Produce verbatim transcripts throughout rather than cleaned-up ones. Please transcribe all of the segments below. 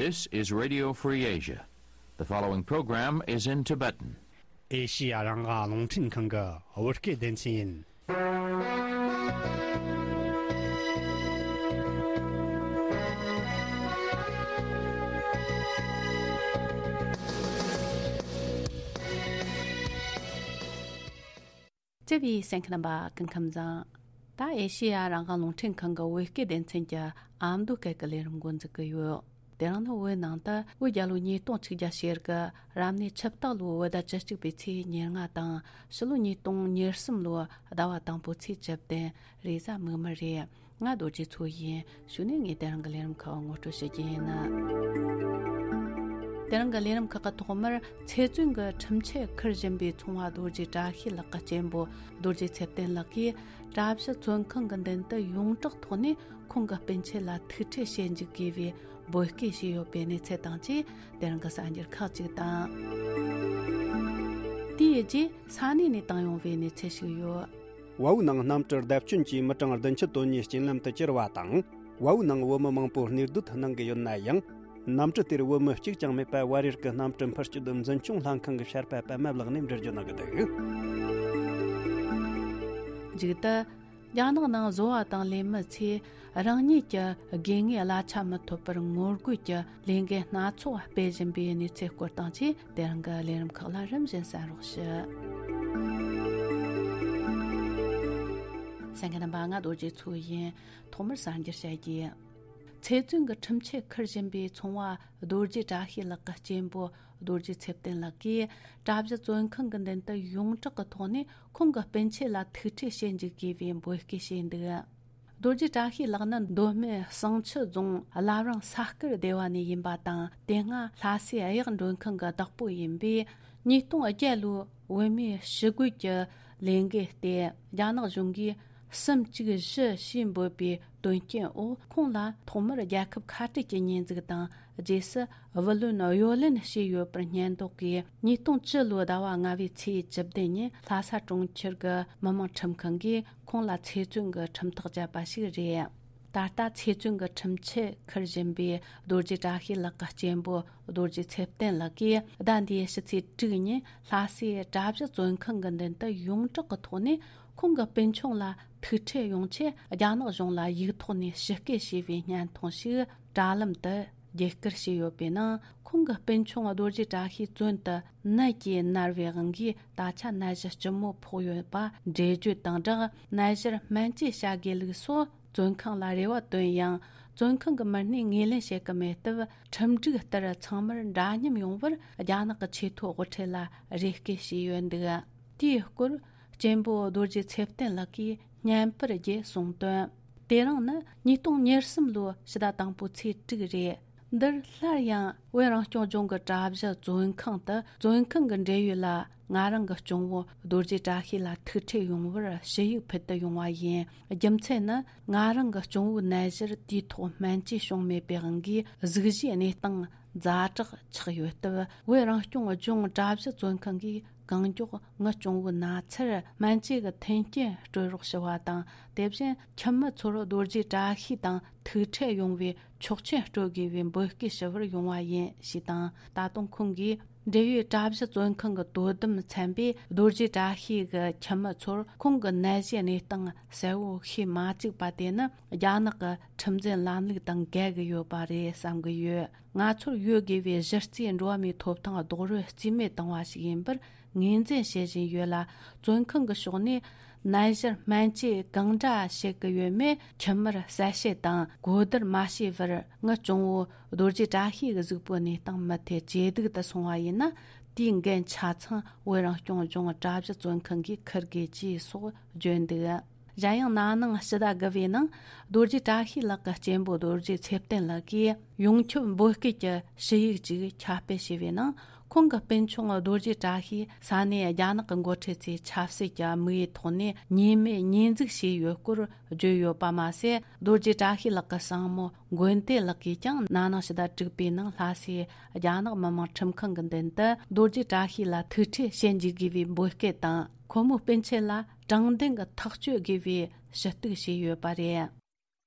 This is Radio Free Asia. The following program is in Tibetan. ཨེ་ཤི་ཡ་རང་དབང་རླུང་འཕྲིན་ཁང་གི་བོད་སྐད་སྡེ་ཚན་ཡིན། བརྩེ་བའི་གསན་མཁན་རྣམ་པ་སྐུ་ཁམས་བཟང་། ད་ཨེ་ཤེ་ཡ་རང་དབང་རླུང་འཕྲིན་ཁང་གི་བོད་སྐད་སྡེ་ཚན་གྱི་ཨ་མདོ་སྐད་ཀྱི་ལས་རིམ་འགོ་འཛུགས་ཀྱི་ཡོད། དེ་རིང་ནི་བོད་ནང་དུ་བོད་རྒྱལ་ལོ་ཉིས་སྟོང་ཆིག་བརྒྱ་ཞེ་དགུ་རབ་གནས་ཆུ་སྟག་ལོའི་བོད་ཟླ་བཅུ་གཅིག་པའི་ཚེས་ཉེར་ལྔ་དང་ཕྱི་ལོ་ཉིས་སྟོང་ཉེར་གསུམ་ལོའི་ཟླ་བ་དང་པོའི་ཚེས་བཅུ་བདུན་རེས་གཟའ་མིག་དམར་རེད། ང་རྡོ་རྗེ་མཚོ་ཡིན། གཞུག་ནས་ངས་དེ་རིང་གི་ལས་རིམ་ཁག་ངོ་སྤྲོད་ཞུ་རྒྱུ་ཡིན། དེ་རིང་གི་ལས་རིམ་ཁག་གི་ཐོག་མར་ཚེ་བཙོན་གྱི་ཁྲིམས་ཆད་འཁུར་བཞིན་པའི་ཚོང་བ་རྡོ་རྗེ་བཀྲ་ཤིས་ལགས་ཀྱི་གཅེན་པོ་རྡོ་རྗེ་ཚེ་བརྟན་ལགས་ཀྱིས་གྲྭ་བཞི་བཙོན་ཁང་གི་མདུན་དུ་ཡོངས་གྲགས་ཐོག་ནས་ཁོང་གི་སྤུན་མཆེད་ལ་ཐུག་འཕྲད་བྱེད་འཇུག་དགོས་པའི་འབོད་སྐུལ་བྱས་ཡོད་པའི་གནས་ཚུལ་དང་བཅས། དེ་རིང་གི་གསར་འགྱུར་ཁག་ཅིག་དང་། དེའི་རྗེས་ས་གནས་ནས་བཏང་ཡོང་བའི་གནས་ཚུལ་ཞིག་ཡོད། ཝའུ་ནང་གནམ་གྲུ་བརྡབ་སྐྱོན་གྱིས་མི་གྲངས་བདུན་ཅུ་དོན་གཉིས་རྐྱེན་ལམ་དུ་གྱུར་བ་དང་། ཝའུ་ནང་བོད་མི་མང་པོ་གནས་སྡོད་གནང་གི་ཡོད་ན་ཡང་། གནམ་གྲུ་དེར་བོད་མི་གཅིག་ཀྱང་མེད་པར་བར་ཡུལ་གྱི་གནམ་གྲུ་འཕུར་སྐྱོད་འཛིན་སྐྱོང་ལྷན་ཁང་གི་བཤད་པ་པད་མ་ལགས་ནས་འགྲེལ་བརྗོད་གནང་གི་འདུག། མཇུག་ཏུ། རྒྱ་ནག་ནང་བཟོ་བ་དང་ལས་མི་ཚོས་རང་ཉིད་ཀྱི་དགོས་ངེས་གླ་ཆ་མི་ཐོབ་པར་ངོ་རྒོལ་གྱི་ལས་འགུལ་སྣ་ཚོགས་སྤེལ་བཞིན་པའི་གནས་ཚུལ་སྐོར་དང་བཅས། དེ་རིང་གི་ལས་རིམ་ཁག་ལ་རིམ་བཞིན་གསན་རོགས་ཞུ། གསན་མཁན་རྣམ་པ། ང་རྡོ་རྗེ་མཚོ་ཡིན། ཐོག་མར་གསར་འགྱུར་བཤད་རྒྱུ། ཚེ་བཙོན་གྱི་ཁྲིམས་ཆད་འཁུར་བཞིན་པའི་ཚོང་བ་རྡོ་རྗེ་བཀྲ་ཤིས་ལགས་ཀྱི་གཅེན་པོ་རྡོ་རྗེ་ཚེ་བརྟན་ལགས་ཀྱིས་གྲྭ་བཞི་བཙོན་ཁང་གི་མདུན་དུ་ཡོངས་གྲགས་ཀྱི་ཐོག་ནས་ཁོང་གི་སྤུན་མཆེད་ལ་ཐུག་འཕྲད་བྱེད་འཇུག་དགོས་པའི་འབོད་སྐུལ་བྱས་འདུག། རྡོ་རྗེ་བཀྲ་ཤིས་ལགས་ནི་མདོ་སྨད་བསང་ཆུ་རྫོང་བླ་བྲང་ས་དཀར་སྡེ་བ་ནས་ཡིན་པ་དང་། དེ་སྔ་ལྷ་སའི་གཡག་མགྲོན་ཁང་གི་བདག་པོ་ཡིན་པས། ཉིས་སྟོང་བརྒྱད་ལོའི་བོད་མིའི་ཞི་རྒོལ་གྱི་ལས་འགུལ་ཏེ། རྒྱ་ནག་གཞུང་གིས་གསུམ་བཅུ་བཞི་ཞེས་འབོད་པའི་དོན་རྐྱེན་འོག་ཁོང་ལ་ཐོག་མར་རྒྱལ་ཁབ་ཁ་བྲལ་གྱི་ཉེས་འཛུགས་དང་། རྗེས་སུ་བུ་ལོན་གཡོ་ལེན་བྱས་ཡོད་པར་སྙད་འདོགས་ཀྱིས། ཉིས་སྟོང་བཅུ་ལོའི་ཟླ་བ་ལྔ་བའི་ཚེས་བཅུ་བདུན་ཉིན་ལྷ་ས་གྲོང་ཁྱེར་གྱི་མི་དམངས་ཁྲིམས་ཁང་གིས་ཁོང་ལ་ཚེ་བཙོན་གྱི་ཁྲིམས་ཐག་བཅད་པ་ཞིག་རེད། ད་ལྟ་ཚེ་བཙོན་གྱི་ཁྲིམས་ཆད་འཁུར་བཞིན་པའི་རྡོ་རྗེ་བཀྲ་ཤིས་ལགས་ཀྱི་གཅེན་པོ་རྡོ་རྗེ་ཚེ་བརྟན་ལགས་ཀྱིས་ཟླ་འདིའི་ཕྱི་ཚེས་དྲུག་ཉིན་ལྷ་སའི་གྲྭ་བཞི་བཙོན་ཁང་གི་མདུན་དུ་ཡོངས་གྲགས་ཀྱི་ཐོག་ནས་ཁོང་གི་སྤུན་ཆུང་ལ་ཐུག་འཕྲད་ཡོང་ཆེད་རྒྱ་ནག་གཞུང་ལ་ཡིག་ཐོག་ནས་ཞིབ་བསྐུལ་བྱས་པའི་བརྙན་ཐུང་ཞིག་དྲ་ལམ་དུ་བརྒྱུད་བསྐུར་བྱས་ཡོད་པའི་ནང་། ཁོང་གི་སྤུན་ཆུང་རྡོ་རྗེ་བཀྲ་ཤིས་བཙོན་དུ་ནད་ཀྱིས་མནར་བའི་དབང་གིས་ད་ཆ་ནད་གཞི་ལྕི་མོ་ཕོག་ཡོད་པ་འགྲེལ་བརྗོད་དང་སྦྲགས། ནད་གཞིར་སྨན་བཅོས་བྱ་དགོས་ལུགས་སོགས་བཙོན་ཁང་ལ་རེ་བ་བཏོན་ཡང་། བཙོན་ཁང་གི་མི་སྣས་ངོས་ལེན་བྱེད་ཀྱི་མེད་སྟབས། ཁྲིམས་སྒྲིག་ལྟར་ཚང་མར་འདྲ་མཉམ་ཡོང་བར་རྒྱ་ནག་གི་ཆེས་མཐོའི་དབུ་ཁྲིད་ལ་རེ་སྐུལ་བྱས་ཡོད་འདུག། དེའི་སྐོར་གཅེན་པོ་རྡོ་རྗེ་ཚེ་བརྟན་ལགས་ཀྱིས་བརྙན་པར་བརྒྱུད་གསུངས་དོན། དེ་རིང་ནི་ཉིས་སྟོང་ཉེར་གསུམ་ལོའི་ཕྱི་ཟླ་དང་པོའི་ཚེས་དྲུག་རེད། འདིར་སླར་ཡང་བོད་རང་སྐྱོང་ལྗོངས་ཀྱི་གྲྭ་བཞི་བཙོན་ཁང་དུ་བཙོན་ཁང་གི་འབྲེལ་ཡོད་ལ་ང་རང་གི་གཅུང་བོ་རྡོ་རྗེ་བཀྲ་ཤིས་ལ་ཐུག་འཕྲད་ཡོང་བར་ཞུ་ཡིག་ཕུལ་དུ་ཡོང་བ་ཡིན། རྒྱུ་མཚན་ནི་ང་རང་གི་གཅུང་བོའི་ནད་གཞིར་དུས་ཐོག་སྨན་བཅོས་བྱུང་མེད་པའི་དབང་གིས་གཟུགས་གཞིའི་གནས་སྟངས་ཛ་དྲག་ཆགས་ཡོད་སྟབས། བོད་རང་སྐྱོང་ལྗོངས་གྲྭ་བཞི་བཙོན་ཁང་གིས་གང་མགྱོགས་ངའི་གཅུང་བོའི་ན་ཚར་སྨན་བཅོས་ཀྱི་མཐུན་རྐྱེན་སྤྲོད་རོགས་ཞུ་བ་དང་། དེ་བཞིན་ཁྱིམ་མི་ཚོར་རྡོ་རྗེ་བཀྲ་ཤིས་དང་ཐུག་འཕྲད་ཡོང་བའི་ཆོག་མཆན་སྤྲོད་དགོས་པའི་འབོད་སྐུལ་ཞུ་བར་ཡོང་བ་ཡིན་ཞེས་དང་། ད་དུང་ཁོང་གིས་འབྲེལ་ཡོད་གྲྭ་བཞི་བཙོན་ཁང་གི་དོ་དམ་ཚན་པས་རྡོ་རྗེ་བཀྲ་ཤིས་ཀྱི་ཁྱིམ་མི་ཚོར་ཁོང་གི་ནད་གཞིའི་གནས་སྟངས་གསལ་བོ་ཤེས་མ་བཅུག་པ་དེ་ནི་རྒྱ་ནག་གི་ཁྲིམས་འཛིན་ལམ་ལུགས་དང་འགལ་གྱི་ཡོད་པ་རེད་བསམ་གྱི་ཡོད། ང་ཚོར་ཡོད་དགོས་པའི་གཞི་རྩའི་འགྲོ་བ་མིའི་ཐོབ་ཐང་རྡོག་རོལ་རྩིས་མེད་བཏང་བ་ཞིག་ཡིན་པར་ངོས་འཛིན་བྱེད་བཞིན་ཡོད་ལ། བཙོན་ཁང་གི་ཕྱོགས་ནས་ནད་གཞིར་སྨན་བཅོས་གང་འདྲ་བྱེད་ཀྱི་ཡོད་མེད་ཁྱིམ་མིར་གསལ་བཤད་དང་གོ་བསྡུར་མ་བྱས་བར། ངའི་གཅུང་བོ་རྡོ་རྗེ་བཀྲ་ཤིས་ཀྱི་གཟུགས་པོའི་གནས་སྟངས་མུ་མཐུད་ཇེ་སྡུག་ཏུ་སོང་བ་ཡིན་ན། དེའི་འགན་ཆ་ཚང་བོད་རང་སྐྱོང་ལྗོངས་གྲྭ་བཞི་བཙོན་ཁང་གིས་འཁུར་དགོས་ཀྱིས་སོགས་བརྗོད་འདུག། གཞན་ཡང་ན་ནིང་ཕྱི་ཟླ་དགུ་བའི་ནང་རྡོ་རྗེ་བཀྲ་ཤིས་ལགས་ཀྱི་གཅེན་པོ་རྡོ་རྗེ་ཚེ་བརྟན་ལགས་ཀྱིས་ཡོངས་ཁྱབ་འབོད་སྐུལ་གྱི་ཞུ་ཡིག་ཅིག་ཁྱབ་སྤེལ་བྱས་པའི་ནང་། ཁོང་གི་སྤུན་ཆུང་རྡོ་རྗེ་བཀྲ་ཤིས་ས་གནས་རྒྱ་ནག་གི་འགོ་ཁྲིད་ཚོས་ཆབ་སྲིད་ཀྱི་དམིགས་ཡུལ་ཐོག་ནས་ཉེས་མེད་ཉེས་འཛུགས་བྱས་ཡོད་སྐོར་བརྗོད་ཡོད་པ་མ་ཟད། རྡོ་རྗེ་བཀྲ་ཤིས་ལགས་ཀྱི་སྲིང་མོ་མགོན་བསྟན་ལགས་ཀྱིས་ཀྱང་ན་ནིང་ཕྱི་ཟླ་དྲུག་པའི་ནང་ལྷ་སའི་རྒྱ་ནག་མི་དམངས་ཁྲིམས་ཁང་གི་མདུན་དུ་རྡོ་རྗེ་བཀྲ་ཤིས་ལ་ཐུག་འཕྲད་བྱེད་འཇུག་དགོས་པའི་འབོད་སྐུལ་དང་། ཁོ་མོའི་སྤུན་མཆེད་ལ་དྲང་བདེན་གྱི་ཐག་གཅོད་དགོས་པའི་ཞུ་གཏུག་བྱས་ཡོད་པ་རེད།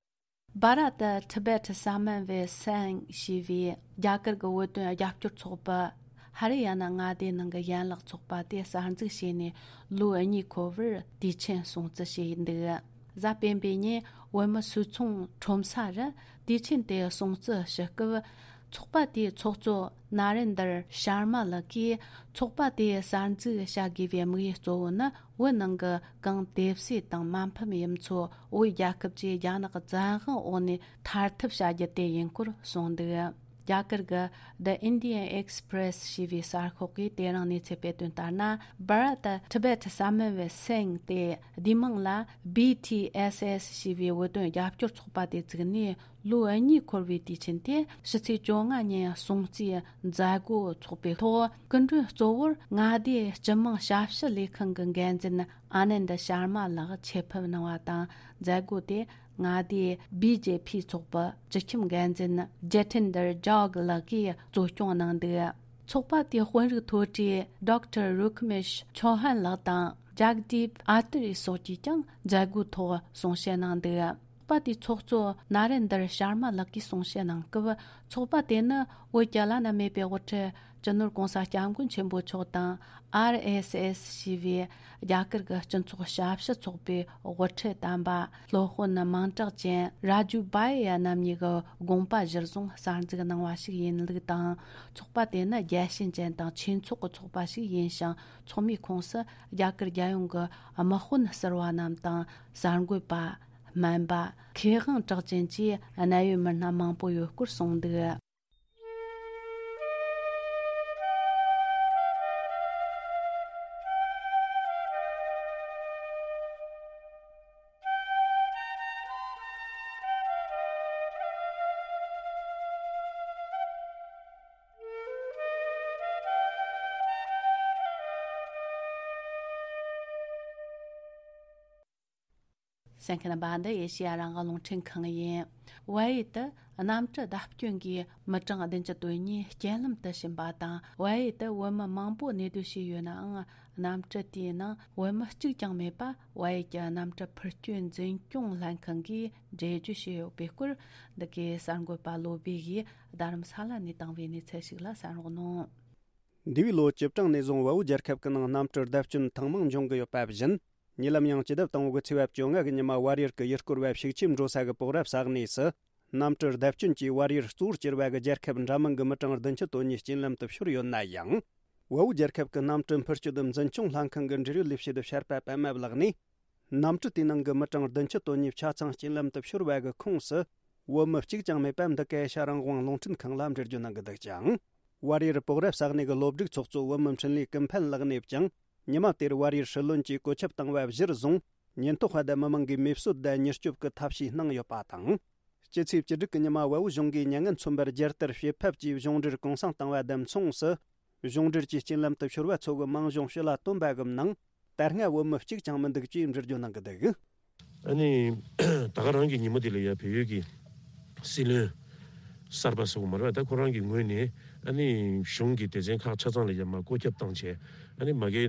Bharat Tibet Samavesai ཞེས་པའི་རྒྱ་གར་གྱི་བོད་དོན་རྒྱབ་སྐྱོར་ཚོགས་པ། ཧ་རི་ཡ་ན་མངའ་སྡེའི་ནང་གི་ཡན་ལག་ཚོགས་པ་དེ་གསར་འཛུགས་བྱས་ནས་ལོ་གཉིས་འཁོར་བར་དུས་ཆེན་སྲུང་བརྩི་བྱས་འདུག་གཟའ་སྤེན་པའི་ཉིན་བོད་མི་སུད་ཚོང་ཁྲོམ་ས་རུ་དུས་ཆེན་དེ་སྲུང་བརྩི་ཞུ་སྐབས། ཚོགས་པ་དེའི་ཚོགས་གཙོ་ན་རེན་དར་ཤར་མ་ལགས་ཀྱིས། ཚོགས་པ་དེ་གསར་འཛུགས་བྱ་དགོས་པའི་དམིགས་ཡུལ་གཙོ་བོ་ནི། བོད་ནང་གི་གང་དེབ་སྲིད་དང་མ་ཕམ་ཡུལ་ཚོ་བོད་རྒྱལ་ཁབ་ཀྱི་རྒྱ་ནག་བཙན་དབང་འོག་ནས་ཐར་ཐབས་བྱ་རྒྱུ་དེ་ཡིན་སྐོར་གསུངས་འདུག་རྒྱ་གར་གྱི་The Indian Express ཞེས་པའི་གསར་ཤོག་གིས་དེ་རིང་གནས་ཚུལ་སྤེལ་དོན་ལྟར་ན། Bharat Tibet Samavesai དེ་བསྡུས་མིང་ལ་B T S S ཞེས་པའི་བོད་དོན་རྒྱབ་སྐྱོར་ཚོགས་པ་དེ་བཙུགས་ནས། ལོ་གཉིས་འཁོར་བའི་དུས་ཆེན་དེ་ཕྱི་ཚེས་བཅོ་ལྔ་ཉིན་སྲུང་བརྩིའི་མཛད་སྒོ་འཚོགས་པའི་ཐོག་སྐུ་མགྲོན་གཙོ་བོར་མངའ་སྡེའི་སྤྱི་དམངས་ཞབས་ཞུ་ལས་ཁང་གི་འགན་འཛིན་ཨ་ནན་ད་ཤར་མ་ལགས་ཆེད་ཕེབས་གནང་བ་དང་། མཛད་སྒོ་དེ་མངའ་སྡེའི་B J P ཚོགས་པའི་སྤྱི་ཁྱབ་འགན་འཛིན་ཇེ་ཐིན་དར་ཇོག་ལགས་ཀྱིས་གཙོ་སྐྱོང་གནང་འདུག་ཚོགས་པ་དེའི་དཔོན་རིགས་མཐོ་གྲས་Doctor Rukmesh Chauhan ལགས་དང་Jagdeep Athare སོགས་ཀྱིས་ཀྱང་མཛད་སྒོའི་ཐོག་གསུང་བཤད་གནང་འདུག་ཚོགས་པ་དེའི་ཚོགས་གཙོ་ན་རེན་དར་ཤར་མ་ལགས་ཀྱིས་གསུང་བཤད་གནང་སྐབས། ཚོགས་པ་དེ་ནི་བོད་ཀྱི་བླ་ན་མེད་པའི་དབུ་ཁྲིད་སྤྱི་ནོར་༸གོང་ས་༸སྐྱབས་མགོན་ཆེན་པོ་མཆོག་དང་། R S S ཞེས་པའི་རྒྱ་གར་གྱི་སྤྱི་ཚོགས་ཞབས་ཞུ་ཚོགས་པའི་དབུ་ཁྲིད་དམ་པ་སློབ་དཔོན་མིང་གྲགས་ཅན་རཱ་ཇུ་བྷ་ཡ་རྣམ་གཉིས་ཀྱི་དགོངས་པ་གཞིར་བཟུང་གསར་འཛུགས་གནང་བ་ཞིག་ཡིན་ལུགས་དང་། ཚོགས་པ་དེ་ནི་རྒྱལ་ཞེན་ཅན་དང་ཆོས་ཚོགས་ཀྱི་ཚོགས་པ་ཞིག་ཡིན་ཞིང་། ཚོགས་མིའི་ཁོངས་སུ་རྒྱ་གར་རྒྱལ་ཡོངས་ཀྱི་དམག་དཔོན་ཟུར་པ་རྣམས་དང་། གསར་འགོད་པ། སྨན་པ། མཁས་དབང་གྲགས་ཅན་བཅས་གནད་ཡོད་མི་སྣ་མང་པོ་ཡོད་སྐོར་གསུངས་འདུག་གསན་མཁན་རྣམ་པ། འདི་ཨེ་ཤེ་ཡ་རང་དབང་རླུང་འཕྲིན་ཁང་ཡིན། བལ་ཡུལ་དུ་གནམ་གྲུ་བརྡབ་སྐྱོན་གྱིས་མི་གྲངས་བདུན་ཅུ་དོན་གཉིས་རྐྱེན་ལམ་དུ་ཕྱིན་པ་དང་། བལ་ཡུལ་དུ་བོད་མི་མང་པོ་གནས་སྡོད་བྱས་ཡོད་ནའང་། གནམ་གྲུ་དེའི་ནང་བོད་མི་གཅིག་ཀྱང་མེད་པ། བལ་ཡུལ་གྱི་གནམ་གྲུ་འཕུར་སྐྱོད་འཛིན་སྐྱོང་ལྷན་ཁང་གིས་འགྲེལ་བརྗོད་བྱས་ཡོད་པའི་སྐོར། འདི་གའི་གསར་འགོད་པ་བློ་བྷེ་ཡིས་རྡ་རམ་ས་ལ་ནས་བཏང་བའི་གནས་ཚུལ་ཞིག་ལ་གསན་རོགས་གནང་། འདས་པའི་ལོ་བཅུ་གྲངས་ནས་བཟུང་བལ་པོ་རྒྱལ་ཁབ་ཀྱི་ནང་གནམ་གྲུ་བརྡབ་སྐྱོན་ཐེངས་མང་འབྱུང་གི་ཡོད་པ་བཞིན། ཉེ་ལམ་ཡང་སྤྱི་ཟླ་དང་པོ་གི་ཚེས་པ་བཅོ་ལྔ་གི་ཉི་མ་བལ་ཡུལ་གྱི་ཡུལ་སྐོར་བ་ཤུག་ཆེམ་འགྲོ་ས་གི་པོག་ར་ས་གནས་སུ། གནམ་གྲུ་བརྡབ་སྐྱོན་གྱིས་བལ་ཡུལ་གཙོ་བོར་གྱུར་པ་གི་རྒྱལ་ཁབ་འདྲ་མིན་གྱི་མི་གྲངས་བདུན་ཅུ་དོན་གཉིས་རྐྱེན་ལམ་དུ་ཤོར་ཡོད་ན་ཡང་། བལ་པོ་རྒྱལ་ཁབ་ཀྱི་གནམ་གྲུ་འཕུར་སྐྱོད་འཛིན་སྐྱོང་ལྷན་ཁང་གི་འབྲེལ་ཡོད་ལས་བྱེད་བྱ་བ་པདྨ་ལགས་ནས། གནམ་གྲུ་དེའི་ནང་གི་མི་གྲངས་བདུན་ཅུ་དོན་གཉིས་ཆ་ཚང་རྐྱེན་ལམ་དུ་ཤོར་བ་གི་ཁོངས་སུ། བོད་མི་གཅིག་ཀྱང་མེད་པ་འདི་ག་ཨེ་ཤ་རང་དབང་རླུང་འཕྲིན་ཁང་ལ་འགྲེལ་བརྗོད་གནང་གི་འདུག་ཅིང་། བལ་ཡུལ་པོག་ར་ས་གནས་ཀྱི་སློབ་སྒྲིག་ཚོགས་གཙོ་བོད་མི་འཕྲིན་ལས་ཀུན་ཕན་ལགས་ནས་ཀྱང་། ཉི་མ་དེར་བལ་ཡུལ་སྲིད་བློན་གྱིས་བཀོད་ཁྱབ་བཏང་བ་གཞིར་བཟུང་། ཉེན་རྟོག་པ་དང་མི་མང་གིས་མེ་གསོད་དང་མྱུར་སྐྱོབ་ཀྱི་ཐབས་ཤེས་གནང་ཡོད་པ་དང་། སྤྱི་ཚེས་བཅུ་དྲུག་གི་ཉི་མ་བལ་པོ་གཞུང་གིས་མྱ་ངན་མཚོན་པར་རྒྱལ་དར་ཕྱེད་ཕབ་ཀྱིས་གཞུང་འབྲེལ་གུང་སེང་བཏང་བ་དང་མཚུངས་སུ། གཞུང་འབྲེལ་གྱི་རྐྱེན་ལམ་དུ་ཤོར་བ་ཚོ་གི་མིང་གཞུང་ཕྱི་ལ་བཏོན་པ་གི་ནང་། ད་སྔ་བོད་མི་གཅིག་ཀྱང་མི་འདུག་ཅེས་འགྲེལ་བརྗོད་གནང་གི་འདུག་ཨ་ནི། ད་ག་རང་གི་ཉིན་མོ་དེ་ལ་ཡ་བལ་ཡུལ་གྱི་སྲིད་བློན་གསར་པ་སོགས་མ་རེད་པ། ད་ཁོ་རང་གི་ངོས་ནས་ཨ་ནི་གཞུང་གི་སྡེ་ཚན་ཁག་ཆ་ཚང་ལ་ཡ་མར་བཀོད་ཁྱབ་བཏང་བྱས། ཨ་ནི་མ་གི་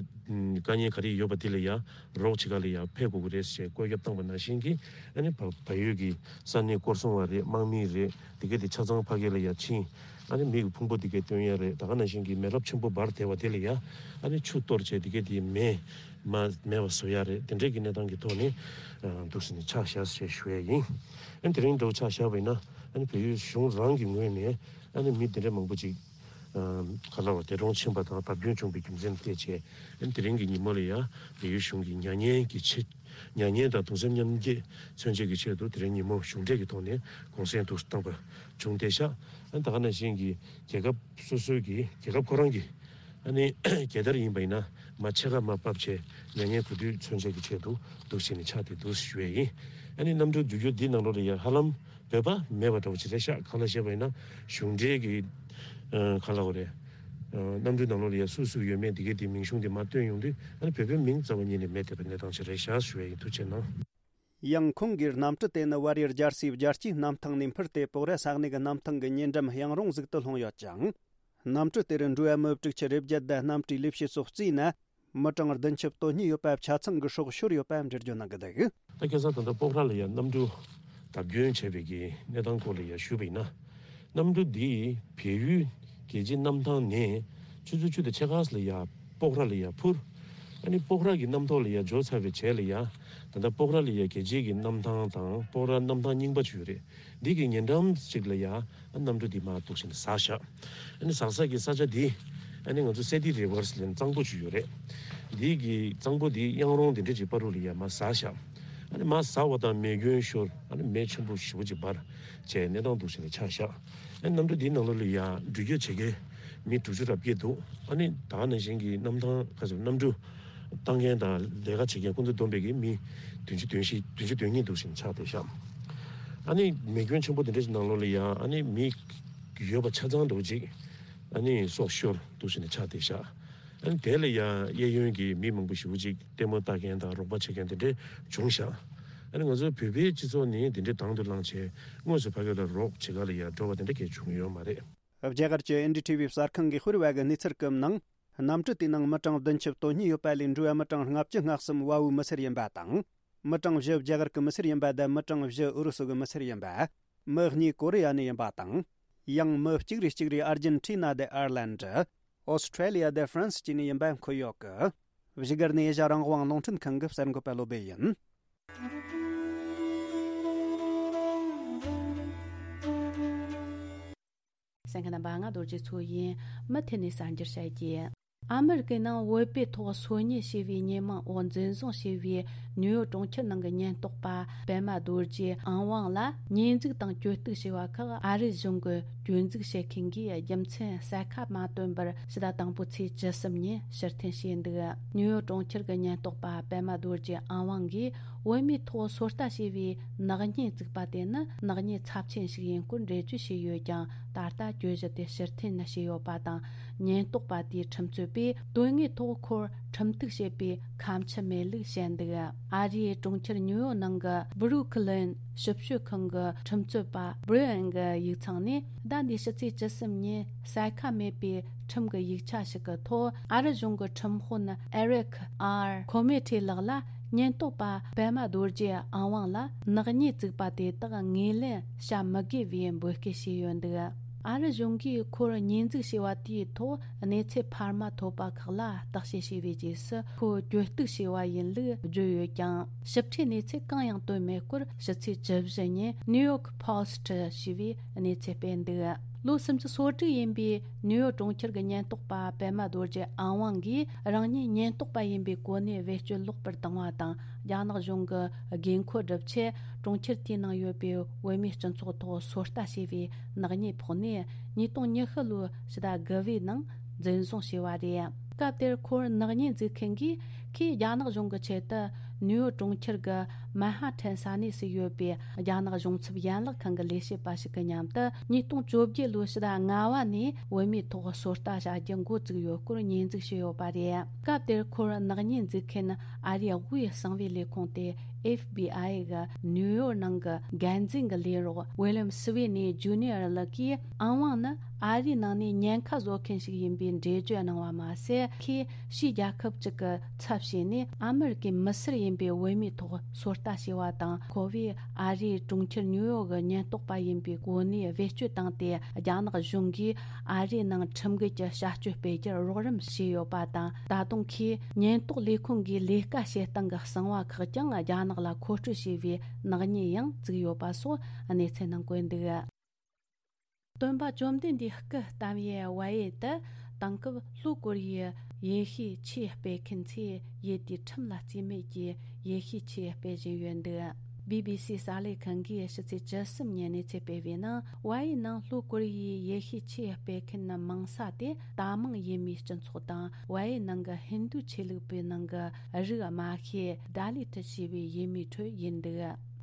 དཀའ་ངལ་ག་རེ་ཡོད་པ་དེ་ལ་ཡ་རོགས་བྱེད་ག་ལ་ཡ་ཕེབས་དགོས་ཀྱི་རེད་ཟེར་བཀོད་ཁྱབ་བཏང་པ་ནང་བཞིན་གྱི། ཨ་ནི་བལ་བལ་ཡུལ་གྱི་ས་གནས་སྐོར་སྲུང་བ་རེད། དམག་མི་རེད། དེ་གས་དེ་ཆ་ཚང་ཕ་གི་ལ་ཡ་ཕྱིན། ཨ་ནི་མི་གི་ཕུང་པོ་དེ་གས་སྟོན་ཡ་རེད། ད་ག་ནང་བཞིན་གྱི་མེ་རླབས་ཆེན་པོ་འབར་བསྡད་པ་དེ་ལ་ཡ་ཨ་ནི་ཆུ་གཏོར་བྱས་དེ་གས་དེ་མེ་མ་མེད་པ་བཟོ་ཡ་རེད། དེ་འདྲས་ཀྱི་གནས་སྟངས་ཀྱི་ཐོག་ནས་འདུག་སེ་ནས་ཕྱག་བཞག་ཞེས་ཞུ་ཡ་ཡིན། ཨ་ནི་དེ་རིང་འདྲ་བོ་ཕྱག་བཞག་པ་ཡིན་ན། ཨ་ནི་བལ་ཡུལ་གཞུང་རང་གི་ངོས་ནས་ཨ་ནི་མི་དེ་འདྲས་མང་པོ་ཅིག་ག་ལ་བ་འདས་གྲོངས་ཕྱིན་པ་དང་བརྡབ་སྐྱོན་བྱུང་པའི་རྒྱུ་མཚན་བལྟས་བྱས། ཨ་ནི་དེ་རིང་གི་ཉིན་མོ་ལ་ཡ་བལ་ཡུལ་གཞུང་གི་མྱ་ངན་གྱི་ཆེད། མྱ་ངན་དང་གདུང་སེམས་མཉམ་སྐྱེད་མཚོན་བྱེད་ཀྱི་ཆེད་དུ་དེ་རིང་ཉིན་མོ་གཞུང་འབྲེལ་གྱི་ཐོག་ནས་གུང་སེང་དུ་བཏང་པ་བྱུང་བསྡད་ཤག་ཨ་ནི་ད་ག་ནང་བཞིན་གྱི་རྒྱལ་ཁབ་སོ་སོའི་གི་རྒྱལ་ཁབ་ཁོ་རང་གི་ཨ་ནི་རྒྱལ་དར་ཡིན་པ་ཡིན་ན་མར་ཕྱེད་ཀ་མར་ཕབ་བྱས། མྱ་ངན་གུས་འདུད་མཚོན་བྱེད་ཀྱི་ཆེད་དུ་འདུག་སེ་ནས་ཕྱག་དེ་འདུག་སེ་ཞུ་ཡས་ཡིན། ཨ་ནི་གནམ་གྲུ་བརྒྱུད་རྒྱུ་འདི་ནང་ལོགས་ལ་ཡ་ཧ་ལམ་བོད་པ་མེད་པ་འདྲ་བོ་ཅིག་རེད་ཤག་གང་ལ་བཤད་པ་ཡིན་ན་གཞུང་འབྲེལ་གྱི་ཨ་གང་ལ་འོ་རེད། ཨ་གནམ་གྲུ་ནང་ལོགས་ལ་ཡ་སུ་སུ་ཡོད་མེད་འདི་གའི་དེ་མིང་གཞུང་དེ་མར་བཏོན་ཡོང་དུས། ཨ་ནི་བོད་པའི་མིང་རྩ་བ་ཉིད་ནས་མེད་བསྡད་པའི་གནས་སྟངས་ཅིག་རེད་ཤག་ཞུ་ཡས་ཡིན། ཐུགས་རྗེ་གནང་། ཡང་ཁོང་གིས་གནམ་གྲུ་དེ་ནི་བལ་ཡུལ་རྒྱལ་སའི་རྒྱལ་སྤྱིའི་གནམ་ཐང་ནས་འཕུར་ཏེ་པོག་ར་ས་གནས་ཀྱི་གནམ་ཐང་གི་ཉེ་འགྲམ་གཡང་རུང་ཟིག་ཏུ་ལྷུང་ཡོད་ཅིང་། གནམ་གྲུ་དེར་འགྲོ་བ་མི་དྲུག་ཅུ་རེ་བརྒྱད་དང་གནམ་གྲུའི་ལས་བྱེད་སོགས་བརྩིས་ན། མི་གྲངས་བདུན་ཅུ་དོན་གཉིས་ཡོད་པ་ཆ་ཚང་གི་སྲོག་ཤོར་ཡོད་པ་འགྲེལ་བརྗོད་གནང་གི་འདུག་ད་ཁ་སང་ད་ལྟ་པོག་ར་ལ་ཡ་གནམ་གྲུ་ བརྡབ་སྐྱོན་བྱས་པའི་གི་གནས་སྟངས་སྐོར་ལ་ཡ་ཞུས་པ་ཡིན་ན། གནམ་གྲུ་འདི་བལ་ཡུལ་རྒྱལ་སྤྱིའི་གནམ་ཐང་ནས་ཆུ་ཚོད་བཅུ་དང་ཕྱེད་ཀ་ཙམ་ལ་ཡ་སྤོག་ར་ལ་ཡ་འཕུར། ཨ་ནི་སྤོག་ར་གི་གནམ་ཐོག་ལ་ཡ་འབྱོར་ཚར་བའི་རྗེས་ལ་ཡ། ད་ལྟ་སྤོག་ར་ལ་ཡ་རྒྱལ་སྤྱིའི་གི་གནམ་ཐང་དང་སྤོག་ར་གནམ་ཐང་རྙིང་པ་ཅིག་ཡོད་རེད། འདི་གི་ཉེ་འགྲམ་ཅིག་ལ་ཡ། ཨ་གནམ་གྲུ་འདི་མར་འདུག་བྱས་ནས་ཟགས་བཞག་ཨ་ནི་ཟགས་ས་གི་ས་ཆ་འདི། ཨ་ནི་ང་ཚོ་སེ་ཏི་རི་ཝར་ཟེར་ནས་གཙང་པོ་ཅིག་ཡོད་རེད། འདི་གི་གཙང་པོ་འདི་གཡང་རོང་འདི་འདྲ་ཅིག་བར་དུ་ལ་ཡ་མར་ཟགས་བཞག་ཨ་ནི་མར་ཟགས་པ་དང་མེ་སྐྱོན་ཤོར། ཨ་ནི་མེ་ཆེན་པོ་ཞེ་པོ་ཅིག་འབར། བྱས་གནས་སྟངས་འདུག་བྱས་ནས་ཆགས་བཞག་ཨ་ནི་གནམ་གྲུ་འདིའི་ནང་ལོགས་ལ་ཡ་འགྲུལ་སྐྱོད་བྱེད་མཁན་མི་དྲུག་ཅུ་རེ་བརྒྱད་འདུག་ཨ་ནི་ད་ག་ནང་བཞིན་གྱི་གནམ་ཐང་ཁ་ཚུར་གནམ་གྲུ་བཏང་མཁན་དང་ལས་ཀ་བྱེད་མཁན་ཀུན་ཏུ་བསྡོམས་པའི་གི་མི་བདུན་ཅུ་དོན་བཞི་བདུན་ཅུ་དོན་གཉིས་འདུག་བྱས་ནས་ཆགས་བསྡད་བཞག་ཨ་ནི་མེ་སྐྱོན་ཆེན་པོ་འདི་འདྲ་ཞིག་ནང་ལོགས་ལ་ཡ་ཨ་ནི་མི་ཡོད་པ་ཆ་ཚང་འདྲ་བོ་ཅིག་ཨ་ནི་སྲོག་ཤོར་འདུག་བྱས་ནས་ཆགས་བསྡད་བཞག་ཨ་ནི་དེ་ལ་ཡ་གཡས་གཡོན་གྱི་མི་མང་པོ་ཞེ་པོ་ཅིག་ལྟད་མོ་ལྟ་མཁན་དང་རོགས་པ་བྱེད་མཁན་དེ་འདྲ་བྱུང་བཞག་ཨ་ནི་ང་ཚོའི་བོད་པའི་སྤྱི་ཚོགས་ནི་དེ་འདྲའི་དང་དུ་བླངས་བྱས་དངོས་སུ་ཕ་གི་ལ་རོགས་བྱེད་ག་ལ་ཡ་འགྲོ་བ་དེ་འདྲ་གས་བྱུང་ཡོད་མ་རེད། རྒྱ་གར་གྱི་ཨེན་ཌི་ཊི་ཝི་གསར་ཁང་གིས་ཤོད་པའི་གནས་ཚུལ་སྐབས་ནང་། གནམ་གྲུ་དེའི་ནང་མི་གྲངས་བདུན་ཅུ་དོན་གཉིས་ཡོད་པ་ལས་འགྲོ་བ་མི་གྲངས་ལྔ་བཅུ་ང་གསུམ་བལ་པོའི་མི་སེར་ཡིན་པ་དང་། མི་གྲངས་བཞི་རྒྱ་གར་གྱི་མི་སེར་ཡིན་པ་དང་མི་གྲངས་བཞི་ཨུ་རུ་སུ་གི་མི་སེར་ཡིན་པ། མི་གཉིས་ཀོ་རི་ཡ་ནས་ཡིན་པ་དང་། ཡང་མི་གཅིག་རེ་གཅིག་རེ་ཨར་ཇེན་ཊི་ན་དང་ཨར་ལན་ཌ། ཨོ་སི་ཁྲེ་ལི་ཡ་དང་ཧྥ་རན་སི་བཅས་ནས་ཡིན་པ་འཁོད་ཡོད་ཀི། བཞུགས་སྒར་ནས་ཨེ་ཤ་རང་དབང་རླུང་འཕྲིན་ཁང་གི་གསར་འགོད་པ་བློ་སྦེ་ཡིན། གསན་མཁན་རྣམ་པ་ང་རྡོ་རྗེ་མཚོ་ཡིན། མུ་མཐུད་ནས་གསར་འགྱུར་བཤད་རྒྱུ། ཨ་མི་རི་ཀའི་ནང་བོད་པའི་ཐོག་སོ་ཉུལ་བྱས་པའི་ཉེས་མིང་འོག་འཛིན་བཟུང་བྱས་པའི་ནིའུ་ཡོག་གྲོང་ཁྱེར་ནང་གི་ཉེན་རྟོག་པ་པད་མ་རྡོ་རྗེ་ཨང་དབང་ལ་ཉེས་འཛུགས་དང་གྱོད་གཏུག་བྱས་པ་ཁག་ཨ་རི་གཞུང་གི་གྱོད་འཛུགས་བྱེད་མཁན་གྱིས་རྒྱུ་མཚན་གསལ་ཁ་མ་བཏོན་པར་ཕྱི་ཟླ་དང་པོའི་ཚེས་བཅུ་གསུམ་ཉིན་ཕྱིར་འཐེན་བྱས་འདུག་ནིའུ་ཡོག་གྲོང་ཁྱེར་གྱི་ཉེན་རྟོག་པ་པད་མ་རྡོ་རྗེ་ཨང་དབང་གིས་བོད་མིའི་ཐོག་ཚོད་ལྟ་བྱས་པའི་ནག་ཉེས་བཙུགས་པ་དེ་ནི་ནག་ཉེས་ཚབས་ཆེན་ཞིག་ཡིན་སྐོར་འགྲེལ་བརྗོད་བྱས་ཡོད་ཀྱང་། ད་ལྟ་གྱོད་གཞི་དེ་ཕྱིར་འཐེན་བྱས་ཡོད་པ་དང་། ཉེན་རྟོག་པ་དེའི་ཁྲིམས་རྩོད་པས་དོན་དངོས་ཐོག་ཁོར་ཁྲིམས་གཏུག་བྱེད་པའི་ཁ་མཆུ་མེད་ལུགས་བཤད་འདུག་ཨ་རིའི་གྲོང་ཁྱེར་ཉིའུ་ཡོག་ནང་གི་སྦུ་རུག་ལིན་ཞིབ་དཔྱོད་ཁང་གི་ཁྲིམས་རྩོད་པ་སྦྲི་ཨན་གྱི་ཡིག་ཚང་ནས་ཟླ་འདིའི་ཕྱི་ཚེས་བཅུ་གསུམ་ཉིན་གསལ་ཁ་མེད་པའི་ཁྲིམས་ཀྱི་ཡིག་ཆ་ཞིག་གི་ཐོག་ཨ་རི་གཞུང་གི་ཁྲིམས་དཔོན་ཨེ་རིག་ཨར་ཁོ་མེ་ཁྲི་ལགས་ལ་ཉེན་རྟོག་པ་པད་མ་རྡོ་རྗེ་ཨང་དབང་ལ་ནག་ཉེས་བཙུགས་པ་དེ་དག་ངོས་ལེན་བྱ་མི་དགོས་པའི་འབོད་སྐུལ་བྱས་ཡོད་འདུག་ཨ་རི་གཞུང་གིས་ཁོར་ཉེས་འཛུགས་བྱས་པ་དེའི་ཐོག་གནས་ཚུལ་འཕར་མ་ཐོབ་པ་ཁག་ལ་བརྟག་དཔྱད་བྱས་པའི་རྗེས་སུ་ཁོ་གྱོད་གཏུག་བྱས་པ་ཡིན་ལུགས་བརྗོད་ཡོད་ཀྱང་ཞིབ་ཕྲའི་གནས་ཚུལ་གང་ཡང་བཏོན་མེད་སྐོར་ཕྱི་ཚེས་བཅུ་བཞི་ཉིན་ནིའུ་ཡོག་པོ་སི་ཊི་ཞེས་པའི་གནས་ཚུལ་སྤེལ་འདུག་ལོ་སུམ་ཅུ་སོ་དྲུག་ཡིན་པའི་ནིའུ་ཡོག་གྲོང་ཁྱེར་གྱི་ཉེན་རྟོག་པ་པད་མ་རྡོ་རྗེ་ཨང་དབང་གིས་རང་ཉིད་ཉེན་རྟོག་པ་ཡིན་པའི་གོ་གནས་བེད་སྤྱོད་ལོག་པར་བཏང་བ་དང་རྒྱ་ནག་གཞུང་གི་དགོས་མཁོ་སྒྲུབ་ཆེད་གྲོང་ཁྱེར་དེའི་ནང་ཡོད་པའི་བོད་མིའི་སྤྱི་ཚོགས་ཐོག་ཚོད་ལྟ་བྱས་པའི་ནག་ཉེས་ཕོག་ནས་ཉིས་སྟོང་ཉི་ཤུ་ལོའི་ཕྱི་ཟླ་དགུ་པའི་ནང་འཛིན་བཟུང་བྱས་པ་རེད། སྐབས་དེར་ཁོར་ནག་ཉེས་འཛུགས་མཁན་གྱིས་ཁོས་རྒྱ་ནག་གཞུང་གི་ཆེད་དུ་ནིའུ་ཡོག་གྲོང་ཁྱེར་གྱི་མན་ཧ་ཐན་ས་གནས་སུ་ཡོད་པའི་རྒྱ་ནག་གཞུང་ཚབ་ཡན་ལག་ཁང་གི་ལས་བྱེད་པ་ཞིག་གི་མཉམ་དུ་ཉིས་སྟོང་བཅོ་བརྒྱད་ལོའི་ཕྱི་ཟླ་ལྔ་པ་ནས་བོད་མིའི་ཐོག་ཚོད་ལྟ་བྱ་རྒྱུ་འགོ་བཙུགས་ཡོད་སྐོར་ཉེས་འཛུགས་བྱས་ཡོད་པ་རེད། སྐབས་དེར་ཁོར་ནག་ཉེས་འཛུགས་མཁན་ཨ་རིའི་དབུས་གསང་བའི་ལས་ཁུངས་ཏེ་ཨེཕ་བི་ཨའི་གི་ནིའུ་ཡོག་ནང་གི་འགན་འཛིན་གྱི་ལས་རོགས་ཝི་ལིམ་སི་ཝི་ནི་ཇུ་ནི་ཡར་ལགས་ཀྱིས་ཨང་དབང་ནི་ཨ་རིའི་ནང་ནས་ཉེན་ཁ་བཟོ་མཁན་ཞིག་ཡིན་པའི་འགྲེལ་བརྗོད་གནང་བ་མ་ཟད། ཁོས་ཕྱིའི་རྒྱལ་ཁབ་ཅིག་གི་ཚབ་བྱས་ནས་ཨ་མི་རི་ཀའི་མི་སེར་ཡིན་པའི་བོད་མིའི་ཐོག་ཚོད་ལྟ་བྱས་པ་དང་། ཁོ་བོས་ཨ་རིའི་གྲོང་ཁྱེར་ཉིའུ་ཡོག་གི་ཉེན་རྟོག་པ་ཡིན་པའི་གོ་གནས་བེད་སྤྱོད་བཏང་སྟེ། རྒྱ་ནག་གཞུང་གིས་ཨ་རིའི་ནང་ཁྲིམས་འགལ་གྱི་བྱ་སྤྱོད་སྤེལ་རྒྱུར་རོགས་རམ་བྱས་ཡོད་པ་དང་། ད་དུང་ཁོས་ཉེན་རྟོག་ལས་ཁུངས་ཀྱི་ལས་ཀ་བྱེད་སྟངས་ཀྱི་གསང་བ་ཁག་ཀྱང་རྒྱ་ནག་ལ་མཁོ་སྤྲོད་བྱས་པའི་ནག་ཉེས་ཡང་བཙུགས་ཡོད་པ་སོགས་གནས་ཚུལ་ནང་བཀོད་འདུག་སྟོན་པ་བཅོམ་ལྡན་འདས་སྐུ་བལྟམས་ཡུལ་ཝ་ཡེ་དུ་དེང་སྐབས་ལྷོ་ཀོ་རི་ཡའི་ཡེ་ཤུའི་ཆོས་སྤེལ་མཁན་ཚོས་ཡུལ་དེའི་ཁྲིམས་ལ་བརྩིས་མེད་ཀྱིས་ཡེ་ཤུའི་ཆོས་སྤེལ་བཞིན་ཡོད་འདུག་བི་བི་སི་གསར་ལས་ཁང་གིས་ཕྱི་ཚེས་བཅུ་གསུམ་ཉིན་གནས་ཚུལ་སྤེལ་བའི་ནང་། ཝ་ཡེ་ནང་ལྷོ་ཀོ་རི་ཡའི་ཡེ་ཤུའི་ཆོས་སྤེལ་མཁན་མང་ས་དེ་ད་མང་ཡུལ་མིའི་སྤྱི་ཚོགས་དང་། ཝ་ཡེ་ནང་གི་ཧིན་རྡུ་ཆོས་ལུགས་པའི་ནང་གི་རིགས་དམའ་ཤོས་ད་ལི་ཐི་ཞེས་པའི་ཡུལ་མིའི་ཁྲོད་ཡིན་འདུག་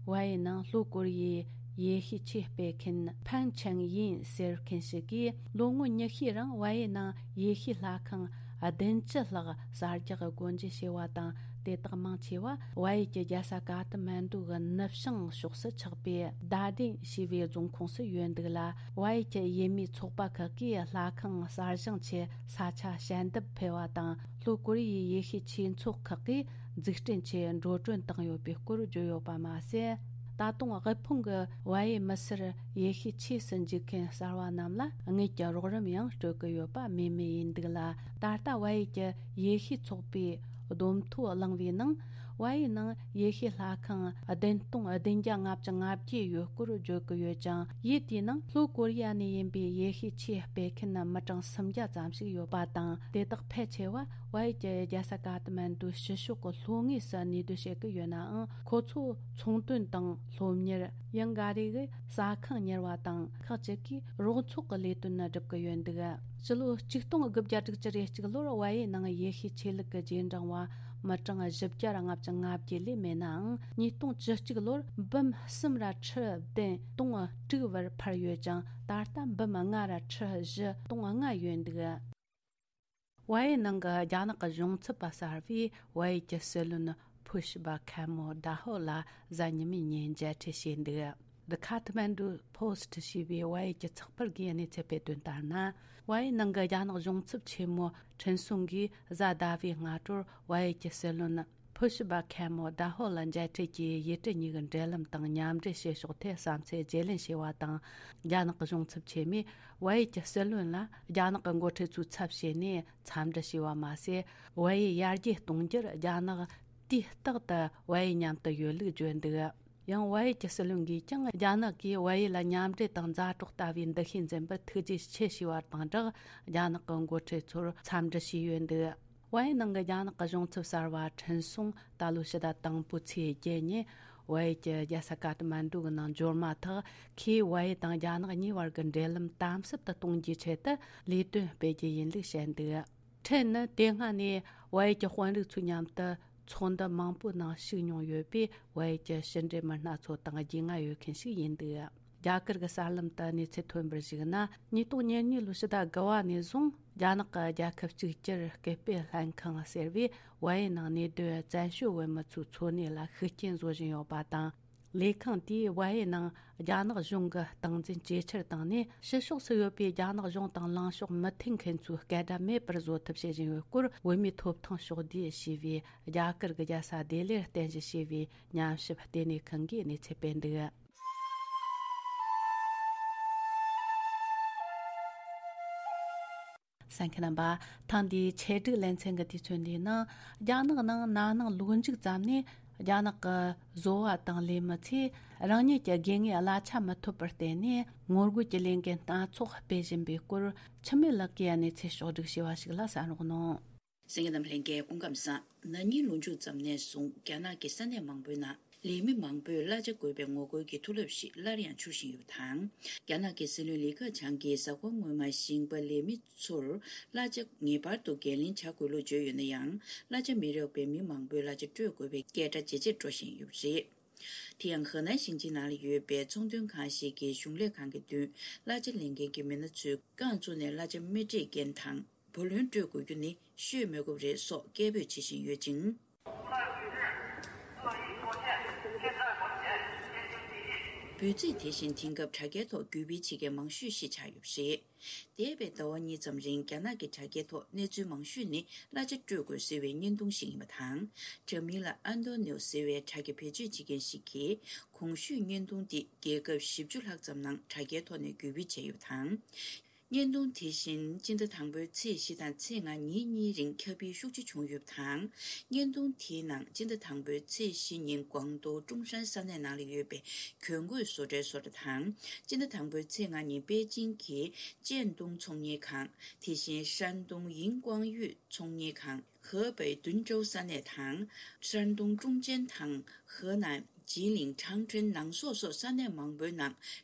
ཝ་ཡེ་ནང་ལྷོ་ཀོ་རི་ཡའི་ཡེ་ཤུའི་ཆོས་སྤེལ་མཁན་ཕན་ཆང་ཡིན་ཟེར་མཁན་ཞིག་གིས། ལོ་ངོ་ཉི་ཤུའི་རིང་ཝ་ཡེ་ནང་ཡེ་ཤུའི་ལྷ་ཁང་བདུན་ཅུ་ལྷག་གསར་རྒྱག་སྒོ་འབྱེད་བྱས་པ་དང་། དེ་དག་མང་ཆེ་བ་ཝ་ཡེ་གྱི་རྒྱལ་ས་ཀ་ཐ་མན་ཌུ་གི་ནུབ་བྱང་ཕྱོགས་སུ་ཆགས་པའི་དཱ་ཏིན་ཞེས་པའི་རྫོང་ཁོངས་སུ་ཡོད་འདུག་ལ། ཝ་ཡེ་གྱི་ཡུལ་མིའི་ཚོགས་པ་ཁག་གིས་ལྷ་ཁང་གསར་བཞེངས་ཆེད་ས་ཆ་ཞལ་འདེབས་ཕུལ་བ་དང་། ལྷོ་ཀོ་རི་ཡའི་ཡེ་ཤུའི་ཆོས་ཚོགས་ཁག་གིས་འཛུགས་སྐྲུན་ཆེད་འགྲོ་གྲོན་བཏང་ཡོད་པའི་སྐོར་བརྗོད་ཡོད་པ་མ་ཟད། ད་དུང་དབུལ་ཕོངས་ཀྱི་བལ་ཡུལ་མི་སེར་ཡེ་ཤུའི་ཆོས་སུ་འཇུག་མཁན་གསར་བ་རྣམས་ལ་དངུལ་གྱི་རོགས་རམ་ཡང་སྤྲོད་ཀྱི་ཡོད་པ་སྨོས་མེད་ཡིན་འདུག་ལ། ད་ལྟ་བལ་ཡུལ་གྱི་ཡེ་ཤུའི་ཚོགས་པས་བསྡོམས་ཐོ་བླངས་པའི་ནང་། བལ་ཡུལ་ནང་ཡེ་ཤུའི་ལྷ་ཁང་བདུན་སྟོང་བདུན་བརྒྱ་ལྔ་བཅུ་ང་བརྒྱད་ཡོད་སྐོར་བརྗོད་ཀྱི་ཡོད་ཅིང་། ཡུལ་དེའི་ནང་ལྷོ་ཀོ་རི་ཡ་ནས་ཡིན་པའི་ཡེ་ཤུའི་ཆོས་སྤེལ་མཁན་མི་གྲངས་སུམ་བརྒྱ་ཙམ་ཞིག་ཡོད་པ་དང་། དེ་དག་ཕལ་ཆེ་བ་བལ་ཡུལ་གྱི་རྒྱལ་ས་ཀ་ཐ་མན་ཌུའི་ཕྱི་ཕྱོགས་ཀྱི་ལྷོ་ངོས་སུ་གནས་སྡོད་བྱེད་ཀྱི་ཡོད་ནའང་། ཁོ་ཚོ་ཚོང་དོན་དང་སློབ་གཉེར། ཡང་འགའ་རེ་གིས་ཟ་ཁང་གཉེར་བ་དང་། ཁག་ཅིག་གིས་རོགས་ཚོགས་ཀྱི་ལས་དོན་སྒྲུབ་ཀྱི་ཡོད་འདུག་ཕྱི་ལོ་ཆིག་སྟོང་དགུ་བརྒྱ་དྲུག་ཅུ་རེ་གཅིག་ལོར་བལ་ཡུལ་ནང་ཡེ་ཤུའི་ཆོས་ལུགས་ཀྱི་རྗེས་འབྲང་བ་མི་གྲངས་བཞི་བརྒྱ་ལྔ་བཅུ་ང་བརྒྱད་ལས་མེད་ནའང་། ཉིས་སྟོང་བཅུ་གཅིག་ལོར་འབུམ་གསུམ་ར་ཁྲི་བདུན་སྟོང་དྲུག་བར་འཕར་ཡོད་ཅིང་། ད་ལྟ་འབུམ་ལྔ་ར་ཁྲི་བཞི་སྟོང་ལྔ་ཡོད་འདུག་བལ་ཡུལ་ནང་གི་རྒྱ་ནག་གི་གཞུང་ཚབ་པ་གསར་པས་བལ་ཡུལ་གྱི་སྲིད་བློན་ཕུ་ཤི་བ་ཁེ་མོ་ད་ཧོ་ལ་གཟའ་ཉི་མའི་ཉིན་མཇལ་འཕྲད་བྱས་འདུག The Kathmandu Post ཞེས་པའི་བལ་ཡུལ་གྱི་ཚགས་པར་གྱིས་གནས་ཚུལ་སྤེལ་དོན་ལྟར་ན། བལ་ཡུལ་ནང་གི་རྒྱ་ནག་གཞུང་ཚབ་ཆེན་མོ་ཁྲིན་སུང་གིས་གཟའ་ཟླ་བའི་སྔ་དྲོར་བལ་ཡུལ་གྱི་སྲིད་བློན་ཕུ་ཤི་བ་ཁེ་མོ་ད་ཧོ་ལ་མཇལ་འཕྲད་ཀྱིས་ཡུལ་གྲུ་གཉིས་ཀྱི་འབྲེལ་ལམ་དང་མཉམ་འབྲེལ་བྱེད་ཕྱོགས་ཐད་བསམ་ཚུལ་བརྗེ་ལེན་བྱས་པ་དང་། རྒྱ་ནག་གི་གཞུང་ཚབ་ཆེན་མོས་བལ་ཡུལ་གྱི་སྲིད་བློན་ལ་རྒྱ་ནག་གི་འགོ་ཁྲིད་ཚོའི་ཚབ་བྱས་ནས་འཚམས་འདྲི་བྱས་པ་མ་ཟད། བལ་ཡུལ་ཡར་རྒྱས་གཏོང་རྒྱུར་རྒྱ་ནག་དུས་རྟག་ཏུ་བལ་ཡུལ་མཉམ་དུ་ཡོད་ལུགས་བརྗོད་འདུག་ཡང་བལ་ཡུལ་གྱི་སྲིད་བློན་གྱིས་ཀྱང་རྒྱ་ནག་གིས་བལ་ཡུལ་ལ་མཉམ་འབྲེལ་དང་མཛའ་གྲོགས་ལྟ་བུའི་འདུ་ཤེས་འཛིན་པར་ཐུགས་རྗེ་ཆེ་ཞུས་པ་དང་སྦྲགས། རྒྱ་ནག་གི་འགོ་ཁྲིད་ཚོར་འཚམས་འདྲི་ཞུས་ཡོད་འདུག་བལ་ཡུལ་ནང་གི་རྒྱ་ནག་གི་གཞུང་ཚབ་གསར་བ་ཁྲིན་སུང་ད་ལོའི་ཕྱི་ཟླ་དང་པོའི་ཚེས་བརྒྱད་ཉིན་བལ་ཡུལ་གྱི་རྒྱལ་ས་ཀ་ཐ་མན་ཌུ་གི་ནང་འབྱོར་མ་ཐག་ཁོས་བལ་ཡུལ་དང་རྒྱ་ནག་གཉིས་བར་གྱི་འབྲེལ་ལམ་དམ་ཟབ་ཏུ་གཏོང་རྒྱུའི་ཆེད་དུ་ལས་དོན་སྤེལ་རྒྱུ་ཡིན་ལུགས་བཤད་འདུག་ཁྲིན་ནི་དེ་སྔ་ནས་བལ་ཡུལ་གྱི་དཔོན་རིགས་ཚོའི་མཉམ་དུ་ཚོགས་འདུ་མང་པོའི་ནང་ཞུགས་མྱོང་ཡོད་པས། བལ་ཡུལ་གྱི་ཕྱི་འབྲེལ་མི་སྣ་ཚོ་དང་རྒྱུས་མངའ་ཡོད་མཁན་ཞིག་ཡིན་འདུག་རྒྱ་གར་གྱི་གསར་ལམ་དུ་གནས་ཚུལ་ཐོན་པར་གཞིགས་ན། ཉིས་སྟོང་ཉེར་གཉིས་ལོའི་ཕྱི་ཟླ་དགུ་བ་ནས་བཟུང་རྒྱ་ནག་གི་རྒྱལ་ཁབ་གཅིག་གྱུར་སྐུལ་སྤེལ་ལྷན་ཁང་ཟེར་བས་བལ་ཡུལ་ནང་གནས་སྡོད་བཙན་བྱོལ་བོད་མི་ཚོའི་འཚོ་གནས་ལ་ཤུགས་རྐྱེན་བཟོ་བཞིན་ཡོད་པ་དང་། ལས་ཁང་དེས་བལ་ཡུལ་ནང་རྒྱ་ནག་གཞུང་གི་སྟངས་འཛིན་ཇེ་ཆེར་བཏང་ནས། ཕྱི་ཕྱོགས་སུ་ཡོད་པའི་རྒྱ་ནག་གཞུང་དང་ལངས་ཕྱོགས་མི་མཐུན་མཁན་ཚོའི་སྐད་སྒྲ་མེད་པར་བཟོ་ཐབས་བྱེད་བཞིན་ཡོད་སྐོར། བོད་མིའི་ཐོབ་ཐང་ཕྱོགས་བསྡུས་ཞེས་པའི་རྒྱ་གར་གྱི་རྒྱལ་ས་ལྡི་ལིར་རྟེན་གཞི་བྱས་པའི་ཉམས་ཞིབ་ལྟེ་གནས་ཁང་གིས་གནས་ཚུལ་སྤེལ་འདུག་གསན་མཁན་རྣམ་པ། ཐེངས་འདིའི་ཆེད་སྒྲིག་ལེ་ཚན་གྱི་དུས་ཚོད་འདིའི་ནང་། རྒྱ་ནག་ནང་ན་ནིང་ལོ་མཇུག་ཙམ་ནས་རྒྱ་ནག་གི་བཟོ་བ་དང་ལས་མི་ཚོས་རང་ཉིད་ཀྱི་དགོས་ངེས་གླ་ཆ་མི་ཐོབ་པར་བརྟེན་ནས། ངོ་རྒོལ་གྱི་ལས་འགུལ་སྣ་ཚོགས་སྤེལ་བཞིན་པའི་སྐོར། འཆི་མེད་ལགས་ཀྱིས་གནས་ཚུལ་ཕྱོགས་བསྒྲིགས་བྱས་པ་ཞིག་ལ་གསན་རོགས་གནང་། གསན་མཁན་རྣམས་ལྷན་རྒྱས་སྐུ་ཁམས་བཟང་། ན་ནིང་ལོ་མཇུག་ཙམ་ནས་བཟུང་རྒྱ་ནག་གི་ས་གནས་མང་པོའི་ནང་ལས་མི་མང་པོས་གླ་ཆ་དགོས་པའི་ངོ་རྒོལ་གྱི་མཐོ་རླབས་ཤིག་སླར་ཡང་འཕྱུར་བཞིན་ཡོད་པ་དང་། རྒྱ་ནག་གི་སྲིད་བློན་ལི་ཁེ་ཆང་གིས་གཟའ་འཁོར་སྔོན་མ་ཞིང་པ་ལས་མི་ཚོར་གླ་ཆ་ངེས་པར་དུ་འགན་ལེན་བྱ་དགོས་ལུགས་བརྗོད་ཡོད་ན་ཡང་། གླ་ཆ་མི་རག་པས་མི་མང་པོས་གླ་ཆ་སྤྲོད་དགོས་པའི་སྐད་སྒྲ་ཇེ་ཆེར་འགྲོ་བཞིན་ཡོད་པ་རེད། དེ་ཡང་ཧེ་ནན་ཞིང་ཆེན་ནང་ལ་ཡོད་པའི་ཚོང་དོན་ཁང་ཞིག་གིས་གཞུང་ལས་ཁང་གི་མདུན་གླ་ཆ་ལེན་མཁན་གྱི་མི་སྣ་ཚོས་རྐང་བཙུགས་ནས་གླ་ཆ་མི་སྤྲད་མཁན་དང་། བུ་ལོན་སྤྲོད་དགོས་རྒྱུ་ནི་ཤོད་མི་དགོས་པ་རེད་སོགས་སྐད་འབོད་བྱེད་བཞིན་ཡོད་ཅིང་། འབོད་ཚིག་དེ་བཞིན་དེང་སྐབས་དྲ་རྒྱའི་ཐོག་བརྒྱུད་སྤེལ་བྱེད་མཁན་མང་ཤོས་ཤིག་ཆགས་ཡོད་པ་རེད། འདས་པའི་ཟླ་བ་གཉིས་ཙམ་རིང་རྒྱ་ནག་གི་དྲ་རྒྱའི་ཐོག་གནས་ཚུལ་མང་ཤོས་ནི་གླ་ཆ་སྤྲོད་དགོས་ཟེར་བའི་བརྙན་ཐུང་ཞིག་ཡིན་པ་དང་། དྲ་མིང་ལ་ཨན་ཏོ་ནིའོ་ཟེར་བའི་དྲ་རྒྱ་བེད་སྤྱོད་བྱེད་མཁན་ཞིག་གིས་གོང་ཞུས་བརྙན་ཐུང་འདི་རྒྱལ་ཁབ་བཞི་བཅུ་ལྷག་ཙམ་ནང་དྲ་རྒྱའི་ཐོག་ནས་བརྒྱུད་སྤེལ་བྱས་ཡོད་པ་དང་། བརྙན་ཐུང་དེ་བཞིན་སྤྱི་ཟླ་དང་པོའི་ཚེས་བཞི་དང་ཚེས་ལྔ་ཉིན་གཉིས་རིང་ཁྱབ་སྤེལ་ཤུགས་ཆེ་བྱུང་ཡོད་པ་དང་། བརྙན་ཐུང་དེའི་ནང་སྤྱི་ཟླ་དང་པོའི་ཚེས་བཞི་ཉིན་ཀོང་ཏུའུ་ཀྲུང་ཧྲན་ས་གནས་ནང་ལ་ཡོད་པའི་གྱོན་གོས་བཟོ་གྲྭའི་བཟོ་གྲྭ་དང་། སྤྱི་ཟླ་དང་པོའི་ཚེས་ལྔ་ཉིན་པེ་ཅིང་གི་ཅན་ཏུང་ཚོང་གཉེར་ཁང་། དེ་བཞིན་ཧྲན་ཏུང་ཡིན་ཀོང་ཡུས་ཚོང་གཉེར་ཁང་། ཧེ་པེ་ཏུན་ཀྲོའུ་ས་གནས་དང་། ཧྲན་ཏུང་ཀྲུང་ཅན་དང་། ཧེ་ནན་ཇི་ལིང་ཁྲང་ཁྲེན་ནང་སོག་སོགས་ས་གནས་མང་པོའི་ནང་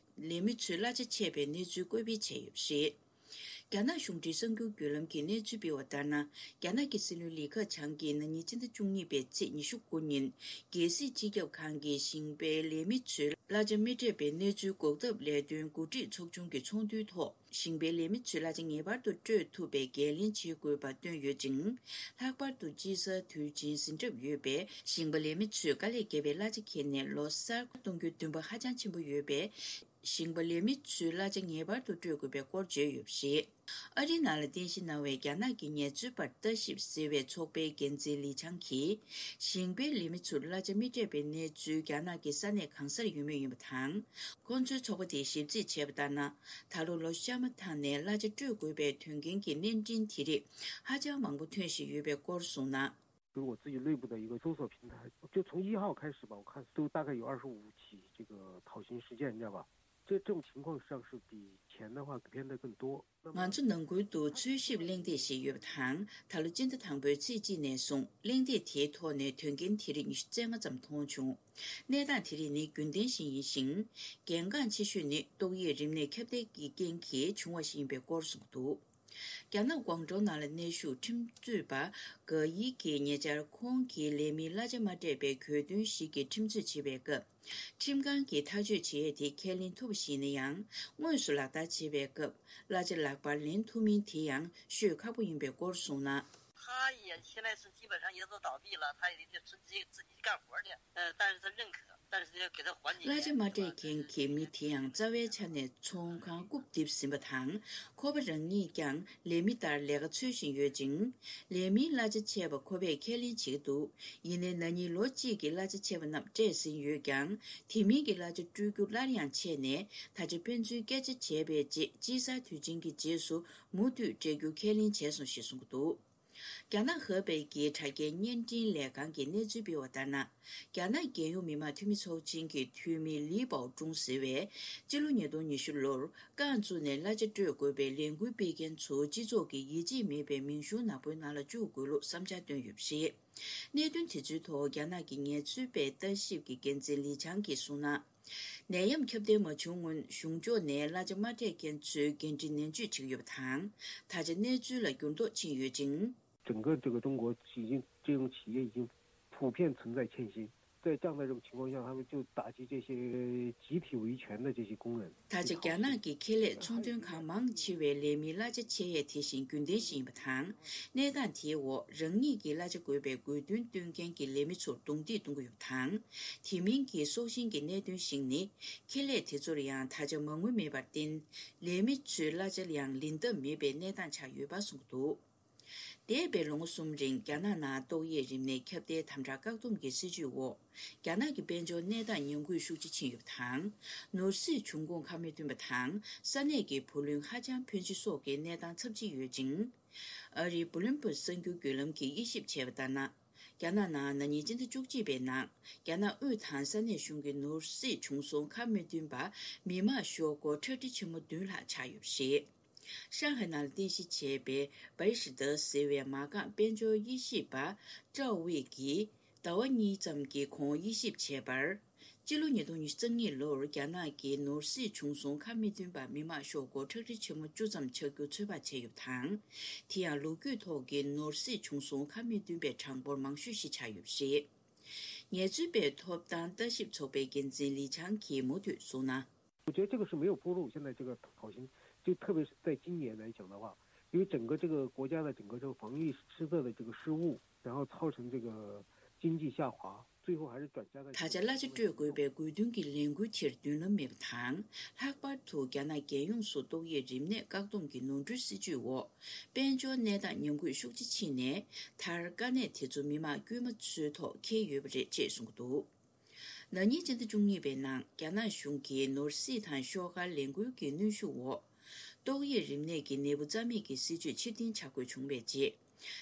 ལས་མི་ཚོས་གླ་ཆ་ཆད་པའི་གནས་ཚུལ་བཀོད་སྤེལ་བྱས་ཡོད་པ་རེད། རྒྱ་ནག་གཞུང་འབྲེལ་གསར་འགྱུར་བརྒྱུད་ལམ་གྱིས་གནས་ཚུལ་སྤེལ་བ་ལྟར་ན། རྒྱ་ནག་གི་སྲིད་བློན་ལི་ཁེ་ཆང་གིས་ན་ནིང་སྤྱི་ཟླ་བཅུ་གཉིས་པའི་ཚེས་ཉི་ཤུ་དགུ་ཉིན། རྒྱལ་སྲིད་སྤྱི་ཁྱབ་ཁང་གི་ཞིང་པའི་ལས་མི་ཚོས་གླ་ཆ་མི་སྤྲད་པའི་གནས་ཚུལ་འགོག་ཐབས་ལས་དོན་འགོ་ཁྲིད་ཚོགས་ཆུང་གི་ཚོགས་འདུའི་ཐོག་ཞིང་པའི་ལས་མི་ཚོས་གླ་ཆ་ངེས་པར་དུ་སྤྲོད་ཐུབ་པའི་འགན་ལེན་བྱེད་དགོས་པ་བཏོན་ཡོད་ཅིང་། ལྷག་པར་དུ་དཔྱིད་གསར་དུས་ཆེན་ཟིན་གྲབས་ཡོད་པས། ཞིང་པ་ལས་མི་ཚོས་དཀའ་ལས་བརྒྱབ་པའི་གླ་ཆ་ཁྱེར་ནས་ལོ་གསར་གཏོང་རྒྱུའི་འདུན་པ་ཧ་ཅང་ཆེན་པོ་ཡོད་པས། ཞིང་པ་ལས་མི་ཚོས་གླ་ཆ་ངེས་པར་དུ་སྤྲོད་དགོས་པའི་སྐོར་བརྗོད་ཡོད་པ་རེད། ཨ་རིའི་ནང་ལ་རྟེན་གཞི་གནང་བའི་རྒྱ་ནག་གི་ངལ་རྩོལ་པར་ལྟ་ཞིབ་ཟེར་བའི་ཚོགས་པའི་འགན་འཛིན་ལི་ཆང་གིས། ཞིང་པའི་ལས་མི་ཚོར་གླ་ཆ་མི་སྤྲད་པའི་གནས་ཚུལ་རྒྱ་ནག་གི་ས་གནས་གང་སར་ཡོད་མུས་ཡིན་པ་དང་། ཁོང་ཚོའི་ཚོགས་པ་དེས་ཞིབ་རྩིས་བྱས་པ་ལྟར་ན། ད་ལོ་ལོ་ཤ་མ་ཐང་ནས་གླ་ཆ་སྤྲོད་དགོས་པའི་དོན་རྐྱེན་གྱི་གནས་འཕྲིན་དེ་རིགས་ཧ་ཅང་མང་པོ་ཐོན་བཞིན་ཡོད་པའི་སྐོར་གསུངས་ན། 就是我自己内部的一个搜索平台，就从一号开始吧，我看都大概有二十五起这个讨薪事件，你知道吧？这种情况实际上是比前的话变得更多。那么 ང་ཚོ་ནང་ཁུལ་དུ་འཚོལ་ཞིབ་གླེང་སྟེགས་ཤིག་ཡོད་པ་དང་། ད་ལོ་སྤྱི་ཟླ་དང་པོའི་ཚེས་གཅིག་ནས་བཟུང་གླེང་སྟེགས་དེའི་ཐོག་ནས་དོན་རྐྱེན་དེ་རིགས་ཉི་ཤུ་རྩ་ལྔ་ཙམ་མཐོང་བྱུང་། གནས་སྟངས་དེ་རིགས་ནི་རྒྱུན་ལྡན་ཞིག་ཡིན་ཞིང་། གལ་འགངས་ཆེ་ཤོས་ནི་ཏོག་དབྱིབས་རིམས་ནད་ཁྱབ་གདལ་གྱི་རྐྱེན་གྱིས་བྱུང་བ་ཞིག་ཡིན་པའི་སྐོར་གསུངས་འདུག་རྒྱ་ནག་ཀོང་ཀྲོའུ་ནང་ལ་གནས་བཞུགས་ཁྲིམས་རྩོད་པ་ག་ཡི་གིས་ཉེ་ཆར་ཁོང་གིས་ལས་མིའི་གླ་ཆ་མ་སྤྲད་པའི་གྱོད་དོན་ཞིག་གི་ཁྲིམས་རྩོད་བྱེད་པའི་སྐབས། ཁྲིམས་ཁང་གིས་ཐག་གཅོད་བྱེད་ཡས་དེ་ཁས་ལེན་ཐུབ་པ་ཞིག་ཡིན་ན་ཡང་། དངོས་སུ་ལག་བསྟར་བྱེད་པའི་སྐབས་གླ་ཆ་ལག་པར་ལེན་ཐུབ་མིན་དེ་ཡང་ཤོད་ཁག་པོ་ཡིན་པའི་སྐོར་གསུངས་ན། 他也现在是基本上也都倒闭了，他也得自己自己干活去，呃，但是他认可，但是又给他还你 གླ་ཆ་མ་སྤྲད་མཁན་གྱི་མི་དེ་ཡང་རྩ་བའི་ཆ་ནས་ཚོང་ཁང་རྐུབ་རྡིབ་ཟིན་པ་དང་། ཁོ་པ་རང་ཉིད་ཀྱང་ལས་མི་ལྟར་ལས་ཀ་འཚོལ་བཞིན་ཡོད་ཅིང་། ལས་མིའི་གླ་ཆ་ཆད་པ་ཁོ་པས་ཁས་ལེན་བྱེད་ཀྱི་འདུག་ཡིན་ནའི་ན་ནིང་ལོ་གཅིག་གི་གླ་ཆ་ཆད་པ་རྣམས་སྤྲད་ཟིན་ཡོད་ཀྱང་། དེ་མིན་གྱི་གླ་ཆ་སྤྲོད་རྒྱུ་སླར་ཡང་ཆད་ནས། ད་ཆ་དཔེ་མཚོན་སྐད་ཆ་བྱས་པའི་རྗེས་དཔྱད་གསར་དུས་ཆེན་གྱི་རྗེས་སུ་མུ་མཐུད་སྤྲད་རྒྱུ་ཁས་ལེན་བྱས་སོང་ཞེས་གསུངས་ཀྱི་འདུག་རྒྱ་ནག་ཧེ་པེ་གྱི་དྲ་རྒྱའི་བརྙན་འཕྲིན་ལས་ཁང་གིས་གནས་ཚུལ་སྤེལ་བ་ལྟར་ན། རྒྱ་ནག་རྒྱལ་ཡོངས་མི་དམངས་འཐུས་མི་ཚོགས་ཆེན་གྱི་འཐུས་མི་ལི་པའོ་ཀྲུང་ཟེར་བས། སྤྱི་ལོ་ཉིས་སྟོང་ཉི་ཤུ་ལོར་རྐང་བཙུགས་ནས་གླ་ཆ་སྤྲོད་དགོས་པའི་ལས་འགུལ་སྤེལ་མཁན་ཚོ་སྤྱི་ཚོགས་ཀྱི་ཡིད་ཆེས་མེད་པའི་མིང་གཞུང་ནག་པོའི་ནང་ལ་བཅུག་དགོས་ལུགས་བསམ་འཆར་བཏོན་ཡོད་པ་རེད། གནད་དོན་དེ་ཚོའི་ཐོག་རྒྱ་ནག་གི་ངལ་རྩོལ་པའི་ལྟ་ཞིབ་ཀྱི་འགན་འཛིན་ལི་ཆང་གིས་གསུངས་ན། ནད་ཡམས་ཁྱབ་གདལ་མ་བྱུང་སྔོན་གཞུང་ཕྱོགས་ནས་གླ་ཆ་མ་སྤྲད་མཁན་ཚོའི་འགན་འཁྲི་ནན་བརྗོད་བྱེད་ཀྱི་ཡོད་པ་དང་། ད་ཆ་གནས་ཚུལ་ལ་འགྱུར་ལྡོག་ཕྱིན་ཡོད་ཅིང་། 整个这个中国已经这种企业已经普遍存在欠薪，在这样的一种情况下，他们就打击这些集体维权的这些工人。 ད་ཆ་རྒྱ་ནག་གི་ཁེ་ལས་ཚོང་དོན་ཁང་མང་ཆེ་བའི་ལས་མིའི་གླ་ཆ་ཆད་ཡས་དེ་བཞིན་རྒྱུན་ལྡན་ཞིག་ཡིན་པ་དང་། གནས་སྟངས་དེའི་འོག་རང་ཉིད་ཀྱི་གླ་ཆ་དགོས་པའི་དགོས་འདུན་བཏོན་མཁན་གྱི་ལས་མི་ཚོར་རྡུང་རྡེག་གཏོང་གི་ཡོད་པ་དང་། དེ་མིན་གྱི་སྲོག་ཤིང་གི་གནད་དོན་ཞིག་ནི། ཁེ་ལས་དེ་ཚོར་ཡང་ད་ཆ་མ་དངུལ་མེད་པར་བརྟེན། ལས་མི་ཚོའི་གླ་ཆ་ཡང་ལེན་ཐབས་མེད་པའི་གནས་སྟངས་ཆགས་ཡོད་པ་གསུངས་འདུག་འདས་པའི་ལོ་ངོ་གསུམ་རིང་རྒྱ་ནག་ནང་ཏོག་དབྱིབས་རིམས་ནད་ཁྱབ་གདལ་དམ་དྲག་བཀག་སྡོམ་གྱི་སྲིད་ཇུས་འོག་རྒྱ་ནག་གི་དཔལ་འབྱོར་གནས་སྟངས་ཉམས་རྒུད་ཤུགས་ཆེ་ཕྱིན་ཡོད་པ་དང་། ནོར་སྲིད་འབྱུང་ཁུངས་ཁ་མི་མཐུན་པ་དང་ས་གནས་ཀྱི་བུ་ལོན་ཧ་ཅང་ཕོན་ཆེ་སོགས་ཀྱི་གནས་སྟངས་ཚབས་ཆེ་ཡོད་ཅིང་། ཨ་རིའི་བུ་ལོན་པུར་གསར་འགྱུར་བརྒྱུད་ལམ་གྱིས་དབྱེ་ཞིབ་བྱས་པ་ལྟར་ན། རྒྱ་ནག་ནང་ན་ནིང་སྤྱི་ཟླ་བཅུ་གཅིག་པའི་ནང་རྒྱ་ནག་དབུས་དང་ས་གནས་གཞུང་གི་ནོར་སྲིད་བྱུང་སོང་ཁ་མི་མཐུན་པ་མི་མང་ཤོག་སྒོར་ཁྲག་ཁྲིག་ཆེན་མོ་བདུན་ལྷག་ཆགས་ཡོད་པ་རེད། ཧྲང་ཧའེ་ནང་ལ་རྟེན་གཞི་བྱས་པའི་བའི་ཧྲི་ཏི་ཟེར་བའི་མ་རྐང་དཔལ་འབྱོར་དབྱེ་ཞིབ་པ་ཀྲའོ་ཝེ་གིས་ཟླ་བ་གཉིས་ཙམ་གྱི་གོང་དབྱེ་ཞིབ་བྱས་པར། སྤྱི་ལོ་ཉིས་སྟོང་ཉི་ཤུ་རྩ་གཉིས་ལོར་རྒྱ་ནག་གི་ནོར་སྲིད་བྱུང་སོང་ཁ་མི་མཐུན་པ་མི་མང་ཤོག་སྒོར་ཁྲག་ཁྲིག་ཆེན་མོ་བཅུ་ཙམ་ཆགས་རྒྱུ་ཚོད་དཔག་བྱས་ཡོད་པ་དང་། དེ་ཡང་ལོ་རྒྱུས་ཐོག་གི་ནོར་སྲིད་བྱུང་སོང་ཁ་མི་མཐུན་པའི་གྲངས་འབོར་མང་ཤོས་ཤིག་ཆགས་ཡོད་པ་རེད། ངལ་རྩོལ་པའི་ཐོབ་ཐང་ལྟ་ཞིབ་ཚོགས་པའི་འགན་འཛིན་ལི་ཆང་གིས་མུ་མཐུད་གསུངས་ན། 我觉得这个是没有铺路。现在这个讨薪，就特别是在今年来讲的话，因为整个这个国家的整个这个防疫失策的这个失误，然后造成这个经济下滑，最后还是转嫁在 ད་ཆ་གླ་ཆ་སྤྲོད་དགོས་པའི་དགོས་འདུན་གྱི་ལས་འགུལ་དེར་མདུན་ལམ་མེད་པ་དང་། ལྷག་པར་དུ་རྒྱ་ནག་རྒྱལ་ཡོངས་སུ་ཏོག་དབྱིབས་རིམས་ནད་བཀག་སྡོམ་གྱི་ནོར་འཁྲུལ་སྲིད་ཇུས་འོག་དཔལ་འབྱོར་གནས་སྟངས་ཉམས་རྒུད་ཤུགས་ཆེ་ཕྱིན་ནས། མཐར་དཀའ་གནད་དེ་ཚོ་མི་མང་དཀྱུས་མ་ཚོའི་ཐོག་འཁེལ་ཡོད་པ་རེད་ཅེས་གསུངས་ཀྱི་འདུག་ན་ནིང་སྤྱི་ཟླ་བཅུ་གཉིས་པའི་ནང་རྒྱ་ནག་གཞུང་གིས་ནོར་སྲིད་དང་ཤོག་དཀར་ལས་འགུལ་གྱི་གནོན་ཤུགས་འོག་ཏོག་དབྱིབས་རིམས་ནད་ཀྱི་ནད་འབུ་རྩ་མེད་ཀྱི་སྲིད་ཇུས་ཕྱིར་འཐེན་བྱ་དགོས་བྱུང་བའི་རྗེས།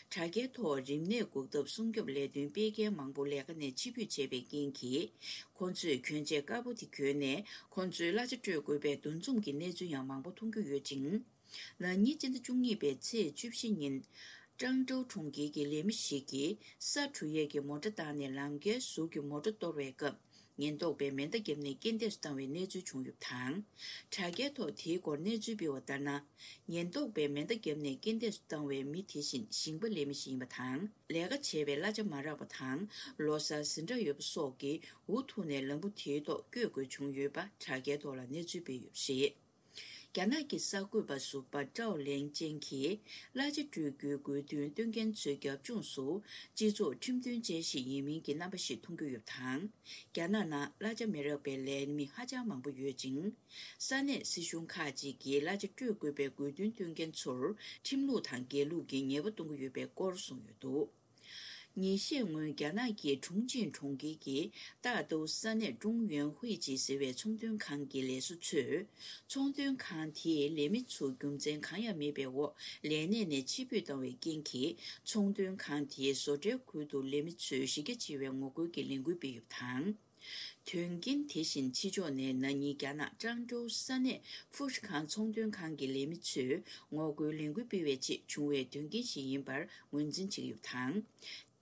དྲ་རྒྱའི་ཐོག་རིམས་ནད་འགོག་ཐབས་སྲུང་སྐྱོབ་ལས་དོན་སྤེལ་མཁན་མང་པོ་ལས་ཀ་ནས་ཕྱིར་འབུད་བྱས་པའི་རྐྱེན་གྱིས། ཁོང་ཚོས་གྱོན་ཆས་དཀར་པོ་དེ་གྱོན་ནས་ཁོང་ཚོའི་གླ་ཆ་སྤྲོད་དགོས་པའི་འདུ་འཛོམས་ཀྱི་གནས་ཚུལ་ཡང་མང་པོ་མཐོང་རྒྱུ་ཡོད་ཅིང་། ན་ནིང་སྤྱི་ཟླ་བཅུ་གཉིས་པའི་ཚེས་བཅུ་བཞི་ཉིན། ཀྲང་ཀྲོའུ་གྲོང་ཁྱེར་གྱི་ལས་མི་ཞིག་གིས་ས་འཁྲུ་ཡས་ཀྱི་མོ་ཊ་བཏང་ནས་ལམ་ཁའི་ཟུར་གྱི་མོ་ཊ་གཏོར་བའི་སྐབས། ཉེན་རྟོག་པས་མེ་མདའ་བརྒྱབ་ནས་རྐྱེན་འདས་སུ་བཏང་བའི་གནས་ཚུལ་བྱུང་ཡོད་པ་དང་། དྲ་རྒྱའི་ཐོག་དེའི་སྐོར་གནས་ཚུལ་སྤེལ་བ་ལྟར་ན། ཉེན་རྟོག་པས་མེ་མདའ་བརྒྱབ་ནས་རྐྱེན་འདས་སུ་བཏང་བའི་མི་དེ་བཞིན་ཞིང་པ་ལས་མི་ཞིག་ཡིན་པ་དང་། ལས་ཀ་བྱས་པའི་གླ་ཆ་མ་རག་པ་དང་། ལོ་གསར་ཟིན་གྲབས་ཡོད་པ་སོགས་ཀྱིས་འུ་ཐུག་ནས་ལམ་བུ་དེའི་ཐོག་བསྐྱོད་དགོས་བྱུང་ཡོད་པ་དྲ་རྒྱའི་ཐོག་ལ་གནས་ཚུལ་སྤེལ་ཡོད་པ་རེད། རྒྱ་ནག་གི་གསར་འགོད་པ་ཟུར་པ་ཀྲའོ་ལེང་ཅན་གྱིས་གླ་ཆ་སྤྲོད་རྒྱུའི་དགོས་འདུན་བཏོན་མཁན་ཚོའི་རྒྱབ་ལྗོངས་སུ། སྤྱི་ཚོགས་ཁྲིམས་མཐུན་ཅན་ཞིག་ཡིན་མིན་གྱི་རྣམ་པ་ཞིག་མཐོང་རྒྱུ་ཡོད་པ་དང་། རྒྱ་ནག་ནང་གླ་ཆ་མི་རག་པའི་ལས་མི་ཧ་ཅང་མང་པོ་ཡོད་ཅིང་། ས་གནས་སྲིད་གཞུང་ཁག་ཅིག་གིས་གླ་ཆ་སྤྲོད་དགོས་པའི་དགོས་འདུན་བཏོན་མཁན་ཚོར་ཁྲིམས་ལུགས་དང་སྒེར་ལུགས་ཀྱི་ཉེས་པ་གཏོང་གི་ཡོད་པའི་སྐོར་གསུངས་ཡོད་འདུག་ཉིན་ཤས་སྔོན་རྒྱ་ནག་གི་ཁྲུང་ཆིང་གྲོང་ཁྱེར་གྱི་ཏཱ་ཏུའུ་ས་གནས་ཀྲུང་ཡོན་ཧུའེ་ཅི་ཟེར་བའི་ཚོང་དོན་ཁང་གི་ལས་བཟོ་ཚོས། ཚོང་དོན་ཁང་དེའི་ལས་མི་ཚོ་རྒྱུ་མཚན་གང་ཡང་མེད་པའི་འོག་ལས་གནས་ནས་ཕྱིར་འབུད་བཏང་བའི་རྐྱེན་གྱིས། ཚོང་དོན་ཁང་དེའི་བཟོ་གྲྭའི་ཁུལ་དུ་ལས་མི་ཚོས་གཞི་རྒྱ་ཆེ་བའི་ངོ་རྒོལ་གྱི་ལས་འགུལ་སྤེལ་ཡོད་པ་དང་། དོན་རྐྱེན་དེ་བཞིན་ཕྱི་ཕྱོགས་ནས་ན་ནིང་རྒྱ་ནག་ཀྲང་ཀྲོའུ་ས་གནས་ཧྥུ་ཧྲི་ཁང་ཚོང་དོན་ཁང་གི་ལས་མི་ཚོས་ངོ་རྒོལ་ལས་འགུལ་སྤེལ་བའི་ཆེད་བྱུང་བའི་དོན་རྐྱེན་ཞིག་ཡིན་པར་ངོས་འཛིན་བྱེད་ཀྱི་ཡོད་པ་དང་།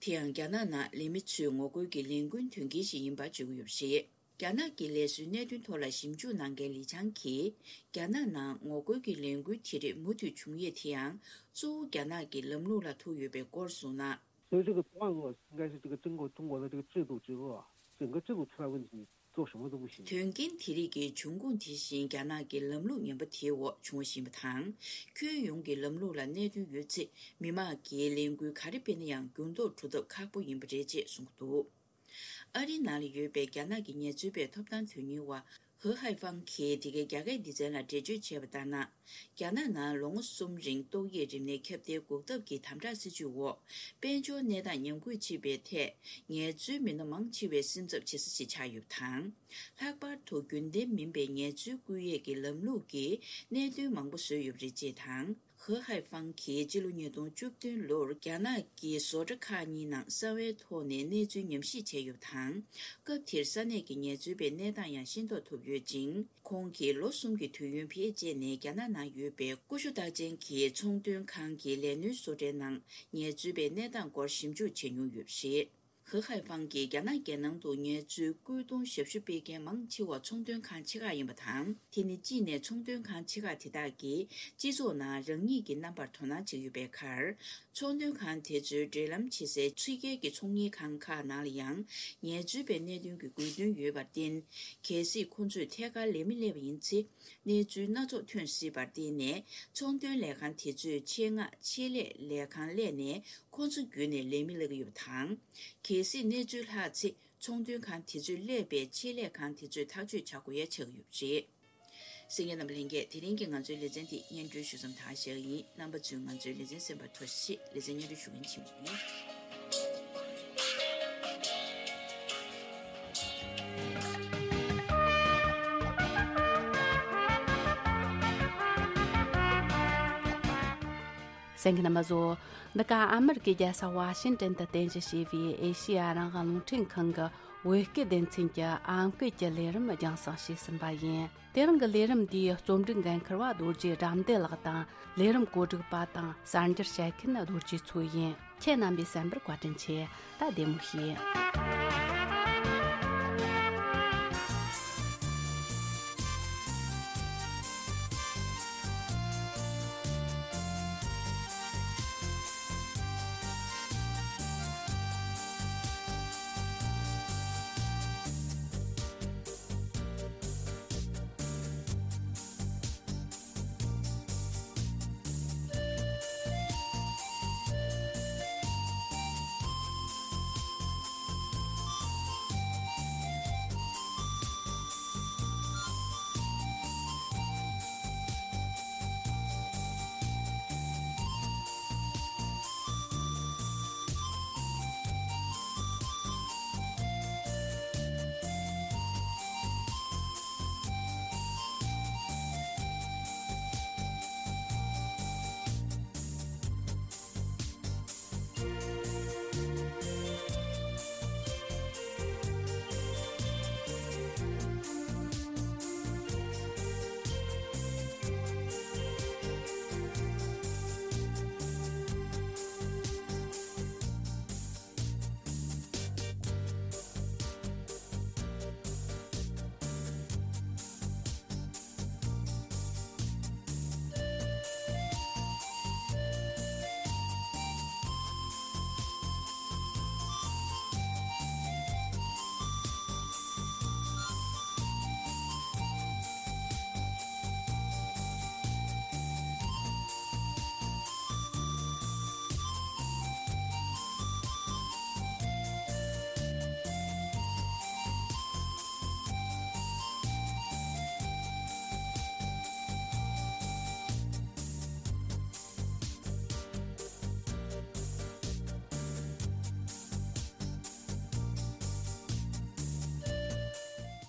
དེ་ཡང་རྒྱ་ནག་ནང་ལས་མི་ཚོས་ངོ་རྒོལ་གྱི་ལས་འགུལ་དོན་རྐྱེན་ཞིག་ཡིན་པར་བརྗོད་ཀྱི་ཡོད་པ་རེད། རྒྱ་ནག་གི་ལས་བཟོའི་གནད་དོན་ཐོག་ལ་ཞིབ་འཇུག་གནང་མཁན་ལི་ཆང་གིས། རྒྱ་ནག་ནང་ངོ་རྒོལ་གྱི་ལས་འགུལ་དེ་རིགས་མུ་མཐུད་བྱུང་ཡས་དེ་ཡང་། གཙོ་བོ་རྒྱ་ནག་གི་ལམ་ལུགས་ལ་ཐུག་ཡོད་པའི་སྐོར་གསུངས་ན། 所以这个断恶应该是这个中国中国的这个制度之恶，整个制度出了问题，做什么都不行。 དོན་རྐྱེན་དེ་རིགས་ཀྱི་འབྱུང་ཁུངས་དེ་བཞིན་རྒྱ་ནག་གི་ལམ་ལུགས་ངན་པ་དེའི་འོག་བྱུང་བ་ཞིག་ཡིན་པ་དང་། ཁྱོན་ཡོངས་ཀྱི་ལམ་ལུགས་ལ་གནད་དོན་ཡོད་ཚེ། མི་དམངས་ཀྱིས་ལས་འགུལ་ག་རེ་སྤེལ་ན་ཡང་འགྱུར་ལྡོག་གྲུབ་ཐབས་ཁག་པོ་ཡིན་པ་རེད་ཅེས་གསུངས་འདུག་ཨ་རིའི་ནང་ལ་ཡོད་པའི་རྒྱ་ནག་གི་ངལ་རྩོལ་པའི་ཐོབ་ཐང་དོན་གཉེར་བ་ཧེ་ཧའེ་ཧྥང་གིས་འདི་གའི་རྒྱ་སྐད་སྡེ་ཚན་ལ་འགྲེལ་བརྗོད་བྱས་པ་ལྟར་ན། རྒྱ་ནག་ནང་ལོ་ངོ་གསུམ་རིང་ཏོག་དབྱིབས་རིམས་ནད་ཁྱབ་གདལ་འགོག་ཐབས་ཀྱི་དམ་དྲག་སྲིད་ཇུས་འོག་དཔལ་འབྱོར་གནས་སྟངས་ཉམས་རྒུད་ཕྱིན་པའི་ཐད། ངལ་རྩོལ་མི་སྣ་མང་ཆེ་བས་སེམས་འཚབ་བྱེད་ས་ཞིག་ཆགས་ཡོད་པ་དང་། ལྷག་པར་དུ་རྒྱུན་ལྡན་མིན་པའི་ངལ་རྩོལ་བསྐུལ་ཡས་ཀྱི་ལམ་ལུགས་ཀྱིས་གནད་དོན་མང་པོ་བཟོས་ཡོད་པ་རེད་ཅེས་དང་། ཧེ་ཧའེ་ཧྥང་གིས་སྤྱི་ལོ་ཉིས་སྟོང་བཅུ་བདུན་ལོར་རྒྱ་ནག་གི་བཟོ་གྲྭ་ཁག་གཉིས་ནང་གསང་བའི་ཐོག་ནས་གནས་ཚུལ་ཉམས་ཞིབ་བྱས་ཡོད་པ་དང་། སྐབས་དེར་ས་གནས་ཀྱི་ངལ་རྩོལ་པའི་གནས་སྟངས་ཡང་ཤེས་རྟོགས་ཐུབ་ཡོད་ཅིང་། ཁོང་གིས་ལོ་གསུམ་གྱི་དུས་ཡུན་བེད་སྤྱད་ནས་རྒྱ་ནག་ནང་ཡོད་པའི་ཀུ་ཤུ་རྟགས་ཅན་གྱི་ཚོང་དོན་ཁང་གི་ལས་སྣོན་བཟོ་གྲྭའི་ནང་ངལ་རྩོལ་པའི་གནས་སྟངས་སྐོར་ཞིབ་འཇུག་བྱེད་མྱོང་ཡོད་པ་རེད། ཧེ་ཧའེ་ཧྥང་གིས་རྒྱ་ནག་རྒྱལ་ནང་དུ་ངལ་རྩོལ་སྐུལ་གཏོང་ཞབས་ཞུ་སྤེལ་མཁན་མང་ཆེ་བ་ཚོང་དོན་ཁང་ཆེ་ཁག་ཡིན་པ་དང་། དེ་ནི་གཅིག་ནས་ཚོང་དོན་ཁང་ཆེ་ཁག་དེ་དག་གིས་སྤྱི་ཚོགས་ནང་རང་ཉིད་ཀྱི་རྣམ་པར་དོ་སྣང་བྱེད་ཀྱི་ཡོད་པའི་ཁར། ཚོང་དོན་ཁང་དེ་ཚོའི་འབྲེལ་ལམ་བྱེད་སའི་ཕྱི་རྒྱལ་གྱི་ཚོང་གཉེར་ཁང་ཁག་ནང་ལ་ཡང་ངལ་རྩོལ་པའི་གནད་དོན་གྱི་དགོས་འདུན་ཡོད་པར་བརྟེན། གལ་སྲིད་ཁོ་ཚོས་ཐད་ཀར་ལས་མི་སླེབས་པ་ཡིན་ཚེ། གནས་ཚུལ་སྣ་ཚོགས་ཐོན་སྲིད་པར་བརྟེན་ནས། ཚོང་དོན་ལས་ཁང་དེ་ཚོས་ཆེད་མངགས་ཆེད་ལས་ལས་ཁང་གླས་ནས་ཁོ་ཚོ་བརྒྱུད་ནས་ལས་མི་གླ་གི་ཡོད་པ་དང་། གལ་སྲིད་གནས་ཚུལ་ལྷག་ཚེ། ཚོང་དོན་ཁང་དེ་ཚོས་གླས་པའི་ཆེད་ལས་ཁང་དེ་ཚོས་ཐག་གཅོད་བྱ་དགོས་ཡ་ཆགས་ཀྱི་ཡོད་པ་རེད། གསན་མཁན་རྣམ་པ་ལྷན་རྒྱས། དེ་རིང་གི་ང་ཚོའི་ལེ་ཚན་འདི་སྙན་སྒྲོན་ཞུ་མཚམས་དག་བཞག་གི་ཡིན། རྣམ་པ་ཚོས་ང་ཚོའི་ལེ་ཚན་གསན་པར་ཐུགས་རྗེ་ཆེ། ལེ་ཚན་སྙན་སྒྲོན་ཞུ་མཁན་ཆིན་མོ་ཡིན། གསན་མཁན་རྣམ་པ་ཚོ། འདི་ག་ཨ་མེ་རི་ཀའི་རྒྱལ་ས་ཝ་ཤིང་ཏན་དུ་རྟེན་གཞི་བྱས་པའི་ཨེ་ཤེ་ཡ་རང་དབང་རླུང་འཕྲིན་ཁང་གི་བོད་སྐད་སྡེ་ཚན་གྱི་ཨམ་སྐད་ཀྱི་ལས་རིམ་རྒྱང་སྲིང་བྱས་ཟིན་པ་ཡིན། དེ་རིང་གི་ལས་རིམ་འདིའི་རྩོམ་སྒྲིག་འགན་འཁུར་བ་རྡོ་རྗེ་དགྲ་འདུལ་ལགས་དང་། ལས་རིམ་གོ་སྒྲིག་པ་དང་གསར་འགྱུར་བཤད་མཁན་རྡོ་རྗེ་མཚོ་ཡིན། ཁྱེད་རྣམ་པས་གསན་པར་བཀའ་དྲིན་ཆེ། ད་བདེ་མོ་བྱོས།